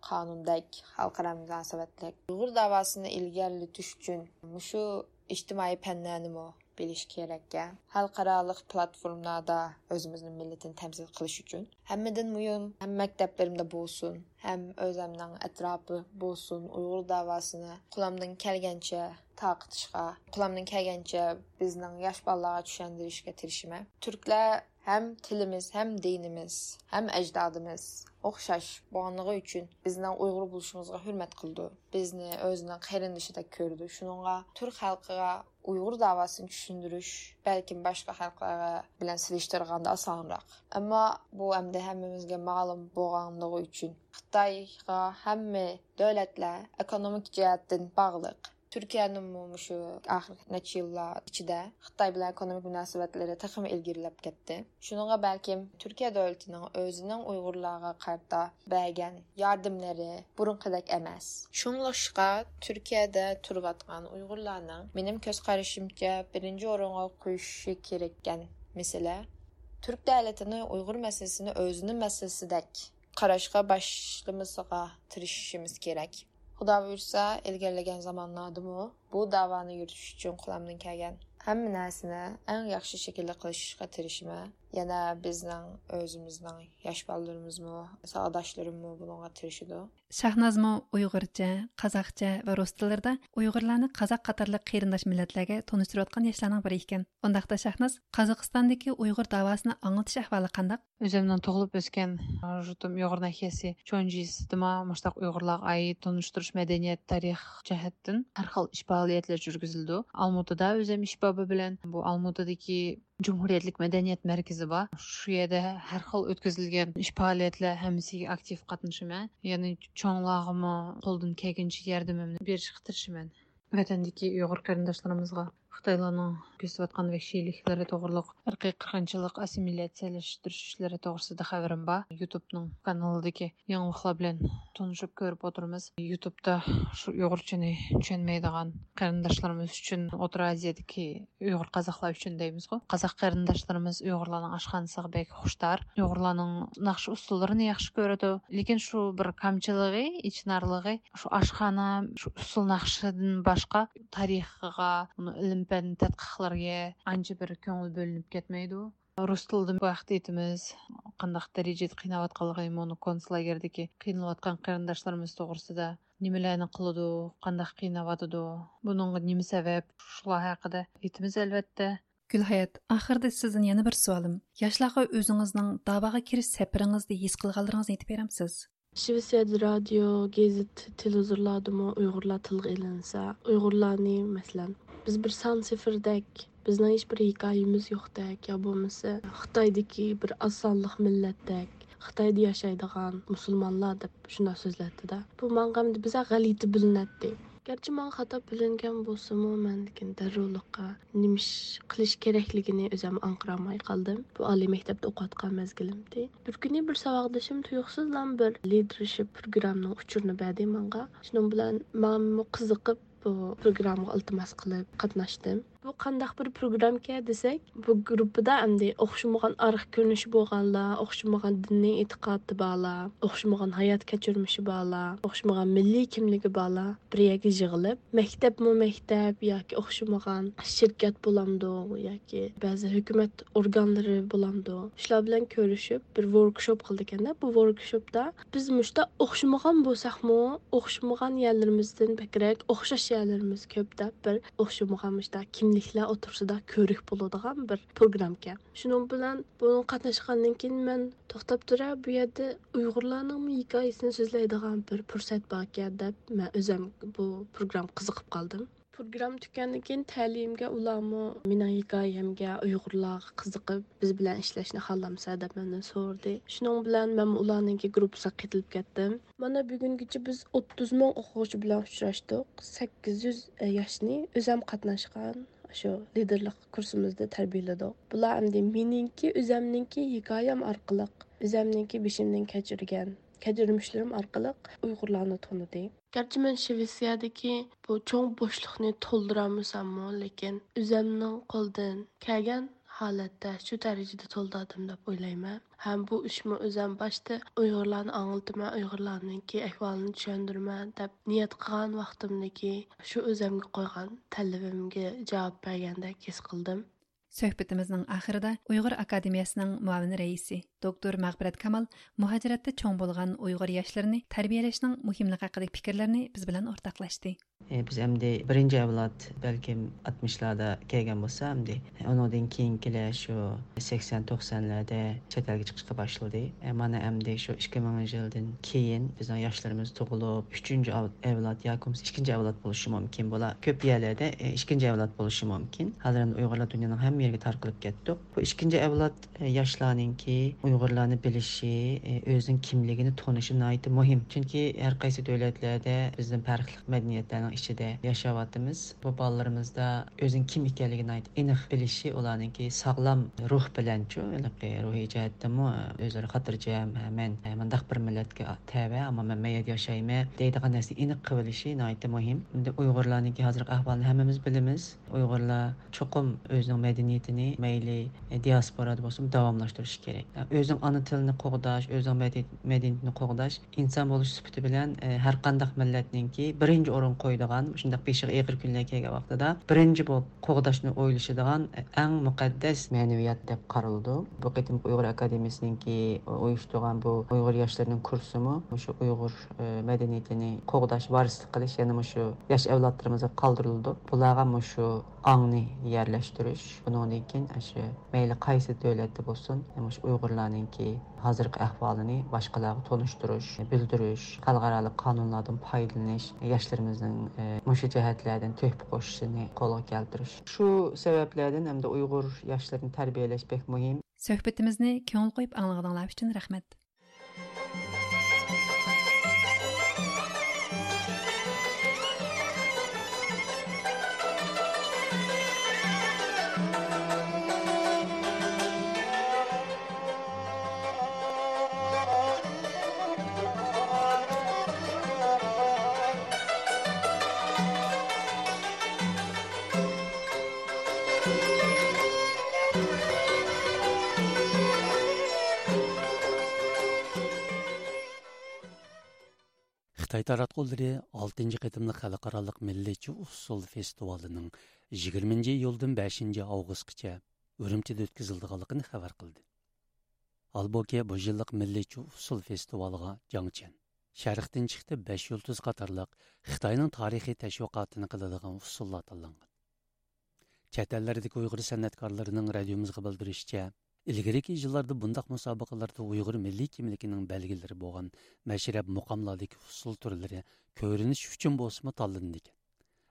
قانۇندەك، خەلقئارا مۇناسىۋەتلىك. ئۇيغۇر داۋاسىنى ئىلگىرىلىتىش ئۈچۈن مۇشۇ ئىجتىمائىي پەنلەرنىمۇ بىلىش كېرەككەن. خەلقئارالىق پلاتفورمىلاردا ئۆزىمىزنىڭ مىللىتىنى تەمسىل قىلىش ئۈچۈن. ھەممىدىن مۇھىم، ھەم مەكتەپلىرىمدە بولسۇن، ھەم ئۆزەمنىڭ ئەتراپى بولسۇن، ئۇيغۇر داۋاسىنى قولۇمدىن كەلگەنچە تارقىتىشقا، قولۇمدىن كەلگەنچە بىزنىڭ ياش بالىلارغا چۈشەندۈرۈشكە تىرىشىمەن. تۈركلەر ھەم تىلىمىز، ھەم دىنىمىز، ھەم ئەجدادىمىز ئوخشاش بولغانلىقى ئۈچۈن بىزنىڭ ئۇيغۇر بولۇشىمىزغا ھۆرمەت قىلىدۇ. بىزنى ئۆزىنىڭ قېرىندىشىدەك كۆرىدۇ. شۇنىڭغا تۈرك خەلقىگە ئۇيغۇر داۋاسىنى چۈشەندۈرۈش بەلكىم باشقا خەلقلەر بىلەن سېلىشتۇرغاندا ئاسانراق. ئەمما بۇ ئەمدى ھەممىمىزگە مەلۇم بولغانلىقى ئۈچۈن خىتايغا ھەممە دۆلەتلەر ئېكونومىك جەھەتتىن باغلىق. تۈركىيەنىمۇ مۇشۇ ئاخىرقى نەچچە يىللار ئىچىدە خىتاي بىلەن ئېكونومىك مۇناسىۋەتلىرى تېخىمۇ ئىلگىرىلەپ كەتتى. شۇنىڭغا بەلكىم تۈركىيە دۆلىتىنىڭ ئۆزىنىڭ ئۇيغۇرلارغا قارىتا بەرگەن ياردىملىرى بۇرۇنقىدەك ئەمەس. شۇڭلاشقا تۈركىيەدە تۇرۇۋاتقان ئۇيغۇرلارنىڭ، مېنىڭ كۆز قارىشىمچە، بىرىنچى ئورۇنغا قويۇشى كېرەككەن مەسىلە، تۈرك دۆلىتىنى ئۇيغۇر مەسىلىسىنى ئۆزىنىڭ مەسىلىسىدەك قاراشقا باشلىمىسىغا تىرىشىشىمىز كېرەك. خۇدا بۇيرۇسا، ئىلگىرىلىگەن زامانلاردىمۇ بۇ داۋانى يۈرۈتۈش ئۈچۈن قولۇمدىن كەلگەن ھەممە نەرسىنى ئەڭ ياخشى شەكىلدە قىلىشقا تىرىشىمەن. يەنە بىزنىڭ ئۆزىمىزنىڭ ياش بالىلىرىمىزمۇ، ساۋاقداشلىرىممۇ بۇنىڭغا تىرىشىدۇ. شاھنازمۇ ئۇيغۇرچە، قازاقچە ۋە رۇس تىللىرىدا ئۇيغۇرلارنى قازاق قاتارلىق قېرىنداش مىللەتلەرگە تونۇشتۇرۇۋاتقان ياشلارنىڭ بىرى ئىكەن. ئۇنداقتا شاھناز، قازاقىستاندىكى ئۇيغۇر داۋاسىنى ئاڭلىتىش ئەھۋالى قانداق؟ ئۆزۈمنىڭ تۇغۇلۇپ ئۆسكەن يۇرتۇم ئۇيغۇر ناھىيەسى چونجىسىدىمۇ مۇشتاق ئۇيغۇرلارغا ئائىت تونۇشتۇرۇش مەدەنىيەت، تارىخ جەھەتتىن ھەر خىل ئىش پائالىيەتلەر يۈرگۈزۈلىدۇ. ئالمۇتىدا ئۆزۈم ئىش بابى بىلەن بۇ ئالمۇتىدىكى جۇمھۇرىيەتلىك مەدەنىيەت مەركىزى بار. شۇ يەردە ھەر خىل ئۆتكۈزۈلگەن ئىش پائالىيەتلەر ھەممىسىگە ئاكتىپ قاتنىشىمەن. يەنى چوڭلارغىمۇ قولدىن كەلگىنىچە ياردىمىمنى بېرىشكە تىرىشىمەن. ۋەتەندىكى ئۇيغۇر قېرىنداشلىرىمىزغا خىتايلارنىڭ كۆرسىتىۋاتقان ۋەھشىيلىكلىرى توغرۇلۇق، ئىرقىي قىرغىنچىلىق، ئاسسىمىلياتسىيەلەشتۈرۈش ئىشلىرى توغرىسىدا خەۋىرىم بار. يۇتۇبنىڭ كانىلىدىكى يېڭىلىقلار بىلەن تونۇشۇپ كۆرۈپ ئولتۇرىمىز. يۇتۇبتا شۇ ئۇيغۇرچىنى چۈشەنمەيدىغان قېرىنداشلىرىمىز ئۈچۈن ئوتتۇرا ئازىيادىكى ئۇيغۇر قازاقلار ئۈچۈن دەيمىزغۇ. قازاق قېرىنداشلىرىمىز ئۇيغۇرلارنىڭ ئاشخانىسىغا بەك خۇشتار. ئۇيغۇرلارنىڭ ناخشا ئۇسسۇللىرىنى ياخشى كۆرىدۇ. لېكىن شۇ بىر كامچىلىقى، ئېچىنارلىقى، شۇ ئاشخانا، شۇ ئۇسسۇل ناخشىدىن باشقا تارىخىغا، ئۇنىڭ ئىلىم-پەن تەتقىقلىرىگە ئانچە بىر كۆڭۈل بۆلۈنۈپ كەتمەيدۇ. رۇس تىلىدا بۇ ھەقتە ئېيتىمىز. قانداق دەرىجىدە قىيناۋاتقانلىقى، مۇنۇ كونتسلاگېردىكى قىينىلىۋاتقان قېرىنداشلىرىمىز توغرىسىدا، نېمىلەرنى قىلىدۇ، قانداق قىيناۋاتىدۇ، بۇنىڭغا نېمە سەۋەب، شۇلار ھەققىدە ئېيتىمىز ئەلۋەتتە. گۈلھايات، ئاخىرىدا سىزدىن يەنە بىر سوئالىم. ياشلارغا ئۆزىڭىزنىڭ داۋاغا كىرىش سەپىرىڭىزدە ھېس قىلغانلىرىڭىزنى ئېيتىپ بېرەمسىز؟ شىۋېتسىيەدە رادىيو، گېزىت، تېلېۋىزورلاردىمۇ ئۇيغۇرلار تىلغا ئېلىنسا، ئۇيغۇرلارنى، مەسىلەن، بىز بىر سان سىفىردەك، بىزنىڭ ھېچ بىر ھېكايىمىز يوقتەك، يا بولمىسا خىتايدىكى بىر ئاز سانلىق مىللەتتەك، خىتايدا ياشايدىغان مۇسۇلمانلار دەپ شۇنداق سۆزلەتتىدە. بۇ ماڭا ئەمدى بىزە غەلىتە بىلىنەتتى. گەرچە ماڭا خاتا بىلىنگەن بولسىمۇ، مەن لېكىن دەررۇلۇققا نېمە ئىش قىلىش كېرەكلىكىنى ئۆزۈم ئاڭقىرالماي قالدىم. بۇ ئالىي مەكتەپتە ئوقۇۋاتقان مەزگىلىمدى. بىر كۈنى بىر ساۋاقدىشىم تۇيۇقسىزلا بىر لىدېرشىپ پروگراممىنىڭ ئۇچۇرىنى بەردى ماڭا. شۇنىڭ بىلەن مەنمۇ قىزىقىپ بۇ پروگراممىغا ئىلتىماس قىلىپ قاتناشتىم. بۇ قانداق بىر پروگراممىكەن دېسەك، بۇ گۇرۇپپىدا ئەمدى ئوخشىمىغان ئارقا كۆرۈنۈشى بولغانلار، ئوخشىمىغان دىنىي ئېتىقادى بارلار، ئوخشىمىغان ھايات كەچۈرمىشى بارلار، ئوخشىمىغان مىللىي كىملىكى بارلار بىر يەرگە يىغىلىپ، مەكتەپمۇ مەكتەپ ياكى ئوخشىمىغان شىركەت بولامدۇ ياكى بەزى ھۆكۈمەت ئورگانلىرى بولامدۇ، شۇلار بىلەن كۆرۈشۈپ بىر ۋوركشوپ قىلىدىكەندە. بۇ ۋوركشوپتا بىز مۇشتا ئوخشىمىغان بولساقمۇ، ئوخشىمىغان يەرلىرىمىزدىن بەكرەك ئوخشاش يەرلىرىمىز كۆپ دەپ، بىر ئوخشىمىغان مۇشتا كىملىكلەر ئوتتۇرىسىدا كۆرۈك بولىدىغان بىر پروگرامكەن. شۇنىڭ بىلەن بۇنىڭغا قاتناشقاندىن كېيىن مەن توختاپ تۇرە، بۇ يەردە ئۇيغۇرلارنىڭمۇ ھېكايىسىنى سۆزلەيدىغان بىر پۇرسەت باركەن دەپ، مەن ئۆزۈم بۇ پروگراممىغا قىزىقىپ قالدىم. پروگرامما تۈگىگەندىن كېيىن تەلىيىمگە ئۇلارمۇ مېنىڭ ھېكايەمگە، ئۇيغۇرلارغا قىزىقىپ، بىز بىلەن ئىشلەشنى خالامسەن دەپ مەندىن سورىدى. شۇنىڭ بىلەن مەنمۇ ئۇلارنىڭكى گۇرۇپپىسىغا قېتىلىپ كەتتىم. مانا بۈگۈنگىچە بىز ئوتتۇز مىڭ ئوقۇغۇچى بىلەن ئۇچراشتۇق. سەككىز يۈز ياشنى ئۆزەم قاتناشقان شۇ لىدېرلىق كۇرسىمىزدا تەربىيەلىدۇق. بۇلار ئەمدى مېنىڭكى، ئۆزەمنىڭكى ھېكايەم ئارقىلىق، ئۆزەمنىڭكى بېشىمدىن كەچۈرگەن كەچۈرمىشلىرىم ئارقىلىق ئۇيغۇرلارنى تونۇدى. گەرچە مەن شىۋېتسىيەدىكى بۇ چوڭ بوشلۇقنى تولدۇرالمىساممۇ، لېكىن ئۆزەمنىڭ قولىدىن كەلگەن ھالەتتە شۇ دەرىجىدە تولدۇردۇم دەپ ئويلايمەن. ھەم بۇ ئىشمۇ ئۆزەم باشتا ئۇيغۇرلارنى ئاڭلىتىمەن، ئۇيغۇرلارنىڭكى ئەھۋالىنى چۈشەندۈرىمەن دەپ نىيەت قىلغان ۋاقتىمدىكى شۇ ئۆزەمگە قويغان تەلىپىمگە جاۋاب بەرگەندەك ھېس قىلدىم. سۆھبىتىمىزنىڭ ئاخىرىدا ئۇيغۇر ئاكادېمىيەسىنىڭ مۇئاۋىن رەئىسى، دوكتور مەغپىرەت كامال مۇھاجىرەتتە چوڭ بولغان ئۇيغۇر ياشلىرىنى تەربىيەلەشنىڭ مۇھىملىقى ھەققىدىكى پىكىرلىرىنى بىز بىلەن ئورتاقلاشتى. ئى، بىز ئەمدى بىرىنچى ئەۋلاد بەلكىم ئاتمىشلاردا كەلگەن بولسا، ئەمدى ئۇنىڭدىن كېيىنكىلەر شۇ سەكسەن، توقسانلاردا چەت ئەلگە چىقىشقا باشلىدى. ئە، مانا ئەمدى شۇ ئىككى مىڭىنچى يىلدىن كېيىن بىزنىڭ ياشلىرىمىز تۇغۇلۇپ، ئۈچىنچى ئەۋ-، ئەۋلاد ياكى بولمىسا ئىككىنچى ئەۋلاد بولۇشى مۇمكىن. بۇلار كۆپ يەرلەردە، ئە، ئىككىنچى ئەۋلاد بولۇشى مۇمكىن. ھازىر ئەمدى ئۇيغۇرلار دۇنيانىڭ ھەممە يېرىگە تارقىلىپ كەتتۇق. بۇ ئىككىنچى ئەۋلاد، ئە، ياشلارنىڭكى ئۇيغۇرلارنى بىلىشى، ئە، ئۆزىنىڭ كىملىكىنى تونۇشى ناھايىتى مۇھىم. چۈنكى ھەر قايسى دۆلەتلەردە بىزدىن پەرقلىق مەدەنىيەتلەرنىڭ ئىچىدە ياشاۋاتىمىز. بۇ بالىلىرىمىزدا ئۆزىنىڭ كىم ئىكەنلىكىنى ناھايىتى ئېنىق بىلىشى، ئۇلارنىڭكى ساغلام روھ بىلەنچۇ، ھېلىقى روھىي جەھەتتىنمۇ ئۆزلىرى خاتىرجەم، ھە، مەن مۇنداق بىر مىللەتكە تەۋە، ئەمما مەن مەيەردە ياشايمەن دەيدىغان نەرسىنى ئېنىق قىلىۋېلىشى ناھايىتى مۇھىم. ئەمدى ئۇيغۇرلارنىڭكى ھازىرقى ئەھۋالىنى ھەممىمىز بىلىمىز. ئۇيغۇرلار چوقۇم ئۆزىنىڭ مەدەنىيىتىنى مەيلى دىياسپورادا بولسۇن داۋاملاشتۇرۇشى كېرەك. ئۆزىنىڭ ئانا تىلىنى قوغداش، ئۆزىنىڭ مەدەنىيىتىنى قوغداش ئىنسان بولۇش سۈپىتى بىلەن، ئە، ھەر قانداق مىللەتنىڭكى بىرىنچى ئورۇنغا قويىدىغان، شۇنداق بېشىغا ئېغىر كۈنلەر كەلگەن ۋاقتىدا بىرىنچى بولۇپ قوغداشنى ئويلىشىدىغان، ئە، ئەڭ مۇقەددەس مەنىۋىيەت دەپ قارىلىدۇ. بۇ قېتىمقى ئۇيغۇر ئاكادېمىيەسىنىڭكى ئۇيۇشتۇرغان بۇ ئۇيغۇر ياشلىرىنىڭ كۇرسىمۇ مۇشۇ ئۇيغۇر، ئە، مەدەنىيىتىنى قوغداش، ۋارىسلىق قىلىش يەنە مۇشۇ ياش ئەۋلادلىرىمىزغا قالدۇرۇلىدۇ. بۇلارغا مۇشۇ ئاڭنى يەرلەشتۈرۈش، بۇنىڭدىن كېيىن ئاشۇ مەيلى قايسى دۆلەتتە بولسۇن، مۇشۇ ئۇيغۇرلارنىڭكى ھازىرقى ئەھۋالىنى باشقىلارغا تونۇشتۇرۇش، بىلدۈرۈش، خەلقئارالىق قانۇنلاردىن پايدىلىنىش، ياشلىرىمىزنىڭ، ئە، مۇشۇ جەھەتلەردىن تۆھپە قوشۇشىنى قولغا كەلتۈرۈش. شۇ سەۋەبلەردىن ئەمدى ئۇيغۇر ياشلىرىنى تەربىيەلەش بەك مۇھىم. سۆھبىتىمىزنى كۆڭۈل قويۇپ ئاڭلىغىنىڭلار ئۈچۈن رەھمەت. خىتاي تاراتقۇلىرى ئالتىنچى قېتىملىق خەلقئارالىق مىللىيچە ئۇسسۇل فېستىۋالىنىڭ يىگىرمىنچى ئىيۇلدىن بەشىنچى ئاۋغۇستقىچە ئۈرۈمچىدە ئۆتكۈزۈلىدىغانلىقىنى خەۋەر قىلدى. ھالبۇكى، بۇ يىللىق مىللىيچە ئۇسسۇل فېستىۋالىغا جاڭچيەن، شەرقتىن چىقتى بەش يۇلتۇز قاتارلىق خىتاينىڭ تارىخىي تەشۋىقاتىنى قىلىدىغان ئۇسسۇللار تاللانغان. چەت ئەللەردىكى ئۇيغۇر سەنئەتكارلىرىنىڭ رادىيومىزغا بىلدۈرۈشىچە، ئىلگىرىكى يىللاردا بۇنداق مۇسابىقىلەردە ئۇيغۇر مىللىي كىملىكىنىڭ بەلگىلىرى بولغان مەشرەپ مۇقاملاردىكى ئۇسسۇل تۈرلىرى كۆرۈنۈش ئۈچۈن بولسىمۇ تاللىنىدىكەن.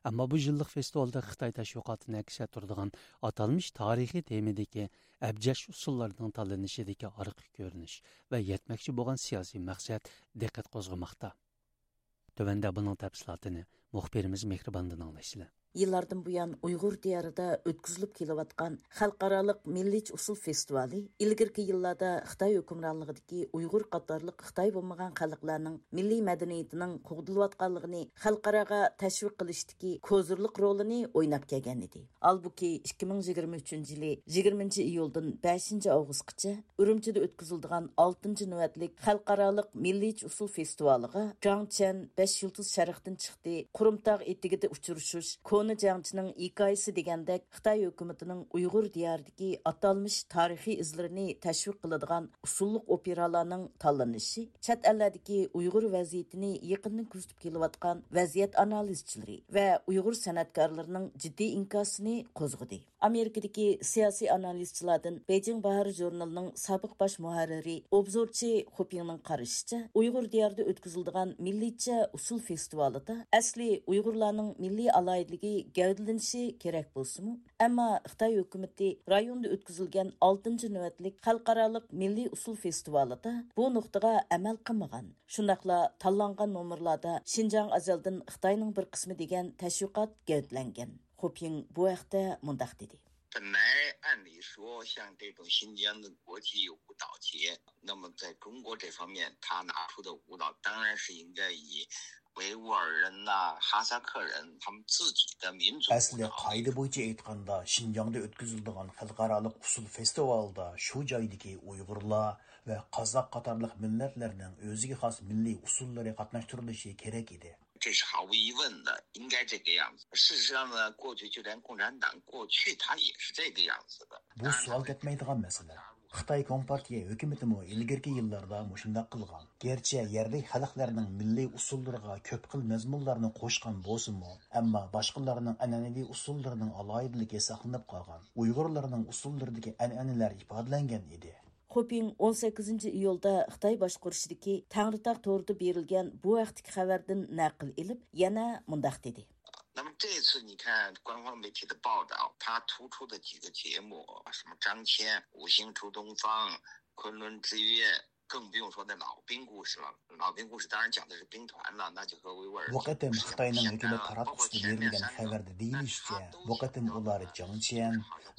ئەمما بۇ يىللىق فېستىۋالدا خىتاي تەشۋىقاتىنى ئەكس ئەتتۈرىدىغان ئاتالمىش تارىخىي تېمىدىكى ئەبجەش ئۇسسۇللارنىڭ تاللىنىشىدىكى ئارقا كۆرۈنۈش ۋە يەتمەكچى بولغان سىياسىي مەقسەت دىققەت قوزغىماقتا. تۆۋەندە بۇنىڭ تەپسىلاتىنى مۇخبىرىمىز مېھرىباندىن ئاڭلايسىلەر. يىللاردىن بۇيان ئۇيغۇر دىيارىدا ئۆتكۈزۈلۈپ كېلىۋاتقان خەلقئارالىق مىللىيچە ئۇسسۇل فېستىۋالى ئىلگىرىكى يىللاردا خىتاي ھۆكۈمرانلىقىدىكى ئۇيغۇر قاتارلىق خىتاي بولمىغان خەلقلەرنىڭ مىللىي مەدەنىيىتىنىڭ قوغدىلىۋاتقانلىقىنى خەلقئاراغا تەشۋىق قىلىشتىكى كوزىرلىق رولىنى ئويناپ كەلگەنىدى. ھالبۇكى، ئىككى مىڭ يىگىرمە ئۈچىنچى يىلى يىگىرمىنچى ئىيۇلدىن بەشىنچى ئاۋغۇستقىچە ئۈرۈمچىدە ئۆتكۈزۈلىدىغان ئالتىنچى نۆۋەتلىك خەلقئارالىق مىللىيچە ئۇسسۇل فېستىۋالىغا جاڭ چيەن بەش يۇلتۇز شەرقتىن چىقتى، قۇرۇمتاغ ئېتىكىدە ئۇچرىشىش، كونا جەڭچىنىڭ ھېكايىسى دېگەندەك خىتاي ھۆكۈمىتىنىڭ ئۇيغۇر دىيارىدىكى ئاتالمىش تارىخىي ئىزلىرىنى تەشۋىق قىلىدىغان ئۇسسۇللۇق ئوپېرالارنىڭ تاللىنىشى، چەت ئەللەردىكى ئۇيغۇر ۋەزىيىتىنى يېقىندىن كۆزىتىپ كېلىۋاتقان ۋەزىيەت ئانالىزچىلىرى ۋە ئۇيغۇر سەنئەتكارلىرىنىڭ جىددىي ئىنكاسىنى قوزغىدى. ئامېرىكىدىكى سىياسىي ئانالىزچىلاردىن بېيجىڭ باھارى ژۇرنىلىنىڭ سابىق باش مۇھەررىرى، ئوبزورچى خۇپىڭنىڭ قارىشىچە، ئۇيغۇر دىيارىدا ئۆتكۈزۈلىدىغان مىللىيچە ئۇسسۇل فېستىۋالىدا ئەسلى ئۇيغۇرلارنىڭ مىللىي ئالاھىدىلىكى گەۋدىلىنىشى كېرەك بولسىمۇ، ئەمما خىتاي ھۆكۈمىتى رايوندا ئۆتكۈزۈلگەن ئالتىنچى نۆۋەتلىك خەلقئارالىق مىللىي ئۇسسۇل فېستىۋالىدا بۇ نۇقتىغا ئەمەل قىلمىغان. شۇنداقلا تاللانغان نومۇرلاردا شىنجاڭ ئەزەلدىن خىتاينىڭ بىر قىسمى دېگەن تەشۋىقات گەۋدىلەنگەن. خۇپىڭ بۇ ھەقتە مۇنداق دېدى. 本来按理说，像这种新疆的国际舞蹈节，那么在中国这方面，他拿出的舞蹈当然是应该以维吾尔人呐、哈萨克人他们自己的民族舞蹈。 ئەسلى قائىدە بويىچە ئېيتقاندا، شىنجاڭدا ئۆتكۈزۈلىدىغان خەلقئارالىق ئۇسسۇل فېستىۋالىدا شۇ جايدىكى ئۇيغۇرلار ۋە قازاق قاتارلىق مىللەتلەرنىڭ ئۆزىگە خاس مىللىي ئۇسسۇللىرى قاتناشتۇرۇلۇشى كېرەك ئىدى. 这是毫无疑问的，应该这个样子。事实上呢，过去就连共产党过去他也是这个样子的。 بۇ سوئال كەتمەيدىغان مەسىلە. خىتاي كومپارتىيە ھۆكۈمىتىمۇ ئىلگىرىكى يىللاردا مۇشۇنداق قىلغان. گەرچە يەرلىك خەلقلەرنىڭ مىللىي ئۇسسۇللىرىغا كۆپ خىل مەزمۇنلارنى قوشقان بولسىمۇ، ئەمما باشقىلارنىڭ ئەنئەنىۋى ئۇسسۇللىرىنىڭ ئالاھىدىلىكى ساقلىنىپ قالغان، ئۇيغۇرلارنىڭ ئۇسسۇللىرىدىكى ئەنئەنىلەر ئىپادىلەنگەن ئىدى. خۇپىڭ ئون سەككىزىنچى ئىيۇلدا خىتاي باشقۇرۇشىدىكى تەڭرىتاغ تورىدا بېرىلگەن بۇ ھەقتىكى خەۋەردىن نەقىل ئېلىپ، يەنە مۇنداق دېدى. 那么这次你看官方媒体的报道，他突出的几个节目，什么张骞、五星出东方、昆仑之约，更不用说那老兵故事了。老兵故事当然讲的是兵团了，那就和维吾尔 بۇ قېتىم خىتاينىڭ ھۆكۈمەت تاراتقۇسىدا بېرىلگەن خەۋەردە دېيىلىشىچە، بۇ قېتىم ئۇلار جاڭچيەن،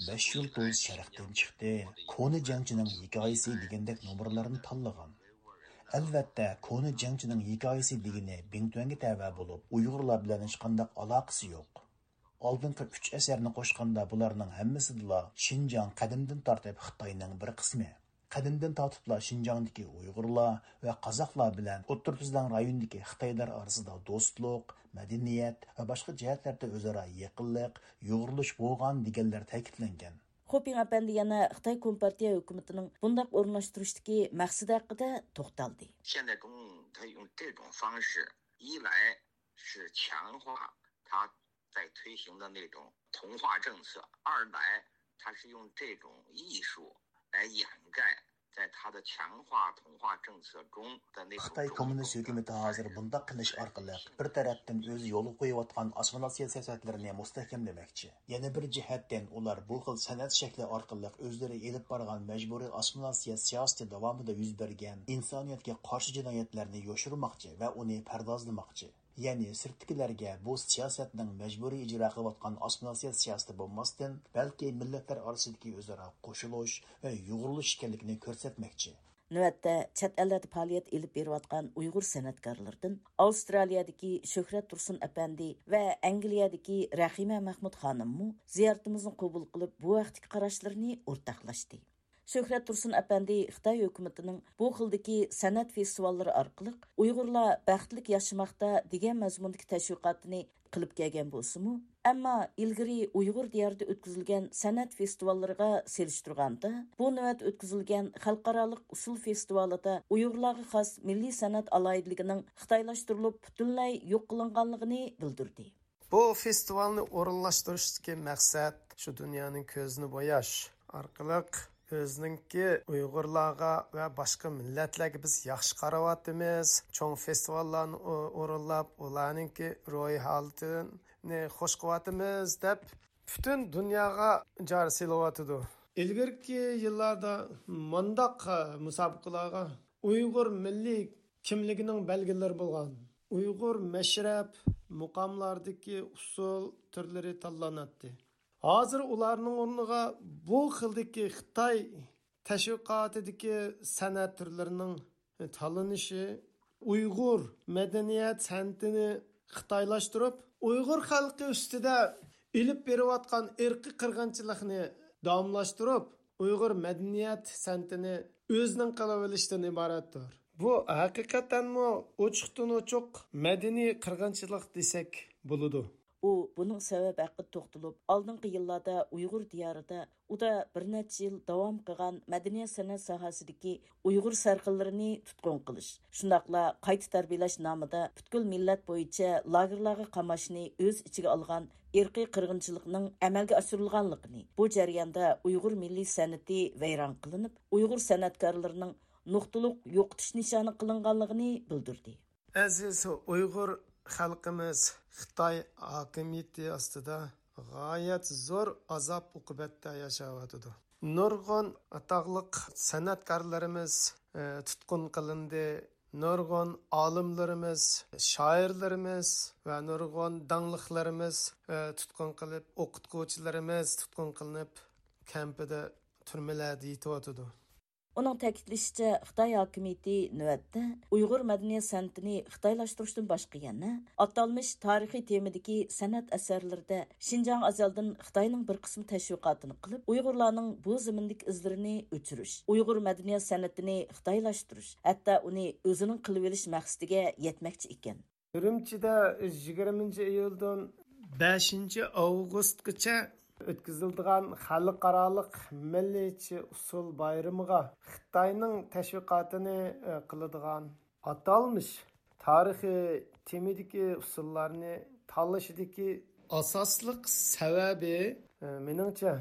بەش يۇلتۇز شەرقتىن چىقتى، كونا جەڭچىنىڭ ھېكايىسى دېگەندەك نومۇرلارنى تاللىغان. ئەلۋەتتە، كونا جەڭچىنىڭ ھېكايىسى دېگىنى بىڭتۈەنگە تەۋە بولۇپ، ئۇيغۇرلار بىلەن ھېچقانداق ئالاقىسى يوق. ئالدىنقى ئۈچ ئەسەرنى قوشقاندا بۇلارنىڭ ھەممىسىدىلا شىنجاڭ قەدىمدىن تارتىپ خىتاينىڭ بىر قىسمى. قەدىمدىن تارتىپلا شىنجاڭدىكى ئۇيغۇرلار ۋە قازاقلار بىلەن ئوتتۇرا تۈزلەڭ رايونىدىكى خىتايلار ئارىسىدا دوستلۇق، مەدەنىيەت ۋە باشقا جەھەتلەردە ئۆزئارا يېقىنلىق، يۇغۇرۇلۇش بولغان دېگەنلەر تەكىتلەنگەن. خۇپىڭ ئەپەندى يەنە خىتاي كومپارتىيە ھۆكۈمىتىنىڭ بۇنداق ئورۇنلاشتۇرۇشتىكى مەقسىتى ھەققىدە توختالدى. 现在中共他用这种方式，一来是强化他在推行的那种同化政策，二来他是用这种艺术来掩盖在他的强化同化政策中的那种种种的 خىتاي كوممۇنىست ھۆكۈمىتى ھازىر بۇنداق قىلىش ئارقىلىق بىر تەرەپتىن ئۆزى يولغا قويۇۋاتقان ئاسسىمىلياتسىيە سىياسەتلىرىنى مۇستەھكەملىمەكچى. يەنە بىر جەھەتتىن ئۇلار بۇ خىل سەنئەت شەكلى ئارقىلىق ئۆزلىرى ئېلىپ بارغان مەجبۇرىي ئاسسىمىلياتسىيە سىياسىتى داۋامىدا يۈز بەرگەن ئىنسانىيەتكە قارشى جىنايەتلەرنى يوشۇرماقچى ۋە ئۇنى پەردازلىماقچى. يەنى سىرتتىكىلەرگە بۇ سىياسەتنىڭ مەجبۇرىي ئىجرا قىلىۋاتقان ئاسسىمىلياتسىيە سىياسىتى بولماستىن، بەلكى مىللەتلەر ئارىسىدىكى ئۆزئارا قوشۇلۇش ۋە يۇغۇرۇلۇش ئىكەنلىكىنى كۆرسەتمەكچى. نۆۋەتتە چەت ئەللەردە پائالىيەت ئېلىپ بېرىۋاتقان ئۇيغۇر سەنئەتكارلىرىدىن ئاۋسترالىيەدىكى شۆھرەت تۇرسۇن ئەپەندى ۋە ئەنگلىيەدىكى رەھىمە مەھمۇد خانىممۇ زىيارىتىمىزنى قوبۇل قىلىپ، بۇ ھەقتىكى قاراشلىرىنى ئورتاقلاشتى. شۆھرەت تۇرسۇن ئەپەندى خىتاي ھۆكۈمىتىنىڭ بۇ خىلدىكى سەنئەت فېستىۋاللىرى ئارقىلىق ئۇيغۇرلار بەختلىك ياشىماقتا دېگەن مەزمۇندىكى تەشۋىقاتىنى قىلىپ كەلگەن بولسىمۇ، ئەمما ئىلگىرى ئۇيغۇر دىيارىدا ئۆتكۈزۈلگەن سەنئەت فېستىۋاللىرىغا سېلىشتۇرغاندا، بۇ نۆۋەت ئۆتكۈزۈلگەن خەلقئارالىق ئۇسسۇل فېستىۋالىدا ئۇيغۇرلارغا خاس مىللىي سەنئەت ئالاھىدىلىكىنىڭ خىتايلاشتۇرۇلۇپ، پۈتۈنلەي يوق قىلىنغانلىقىنى بىلدۈردى. بۇ فېستىۋالنى ئورۇنلاشتۇرۇشتىكى مەقسەت شۇ دۇنيانىڭ كۆزىنى بوياش ئارقىلىق ئۆزىنىڭكى ئۇيغۇرلارغا ۋە باشقا مىللەتلەرگە بىز ياخشى قاراۋاتىمىز، چوڭ فېستىۋاللارنى ئو-، ئورۇنلاپ، ئۇلارنىڭكى روھىي ھالىتىنى خوش قىلىۋاتىمىز دەپ پۈتۈن دۇنياغا جار سېلىۋاتىدۇ. ئىلگىرىكى يىللاردا مۇنداق مۇسابىقىلارغا ئۇيغۇر مىللىي كىملىكىنىڭ بەلگىلىرى بولغان ئۇيغۇر مەشرەپ، مۇقاملاردىكى ئۇسسۇل تۈرلىرى تاللىناتتى. ھازىر ئۇلارنىڭ ئورنىغا بۇ خىلدىكى خىتاي تەشۋىقاتىدىكى سەنئەت تۈرلىرىنىڭ تاللىنىشى ئۇيغۇر مەدەنىيەت سەنئىتىنى خىتايلاشتۇرۇپ، ئۇيغۇر خەلقى ئۈستىدە ئېلىپ بېرىۋاتقان ئىرقىي قىرغىنچىلىقنى داۋاملاشتۇرۇپ، ئۇيغۇر مەدەنىيەت سەنئىتىنى ئۆزىنىڭ قىلىۋېلىشتىن ئىبارەتتۇر. بۇ ھەقىقەتەنمۇ ئوچۇقتىن ئوچۇق مەدەنىي قىرغىنچىلىق دېسەك بولىدۇ. ئۇ بۇنىڭ سەۋەبى ھەققىدە توختىلىپ، ئالدىنقى يىللاردا ئۇيغۇر دىيارىدا ئۇدا بىر نەچچە يىل داۋام قىلغان مەدەنىيەت سەنئەت ساھەسىدىكى ئۇيغۇر سەرخىللىرىنى تۇتقۇن قىلىش، شۇنداقلا قايتا تەربىيەلەش نامىدا پۈتكۈل مىللەت بويىچە لاگېرلارغا قاماشنى ئۆز ئىچىگە ئالغان ئىرقىي قىرغىنچىلىقنىڭ ئەمەلگە ئاشۇرۇلغانلىقىنى، بۇ جەرياندا ئۇيغۇر مىللىي سەنئىتى ۋەيران قىلىنىپ، ئۇيغۇر سەنئەتكارلىرىنىڭ نۇقتىلىق يوقىتىش نىشانى قىلىنغانلىقىنى بىلدۈردى. ئەزىز ئۇيغۇر خەلقىمىز خىتاي ھاكىمىيىتى ئاستىدا غايەت زور ئازاب-ئوقۇبەتتە ياشاۋاتىدۇ. نۇرغۇن ئاتاقلىق سەنئەتكارلىرىمىز، ئە، تۇتقۇن قىلىندى. نۇرغۇن ئالىملىرىمىز، شائىرلىرىمىز ۋە نۇرغۇن داڭلىقلىرىمىز، ئە، تۇتقۇن قىلىپ، ئوقۇتقۇچىلىرىمىز تۇتقۇن قىلىنىپ، كەمپىدە، تۈرمىلەردە يېتىۋاتىدۇ. ئۇنىڭ تەكىتلىشىچە، خىتاي ھاكىمىيىتى نۆۋەتتە ئۇيغۇر مەدەنىيەت سەنئىتىنى خىتايلاشتۇرۇشتىن باشقا يەنە ئاتالمىش تارىخىي تېمىدىكى سەنئەت ئەسەرلىرىدە شىنجاڭ ئازەلدىن خىتاينىڭ بىر قىسىم تەشۋىقاتىنى قىلىپ، ئۇيغۇرلارنىڭ بۇ زېمىندىكى ئىزلىرىنى ئۆچۈرۈش، ئۇيغۇر مەدەنىيەت سەنئىتىنى خىتايلاشتۇرۇش، ھەتتا ئۇنى ئۆزىنىڭ قىلىۋېلىش مەقسىتىگە يەتمەكچى ئىكەن. ئۈرۈمچىدە يىگىرمىنچى ئىيۇلدىن بەشىنچى ئاۋغۇستقىچە ئۆتكۈزۈلىدىغان خەلقئارالىق مىللىيچە ئۇسسۇل بايرىمىغا خىتاينىڭ تەشۋىقاتىنى، ئە، قىلىدىغان ئاتالمىش تارىخىي تېمىدىكى ئۇسسۇللارنى تاللىشىدىكى ئاساسلىق سەۋەبى، ئە، مېنىڭچە،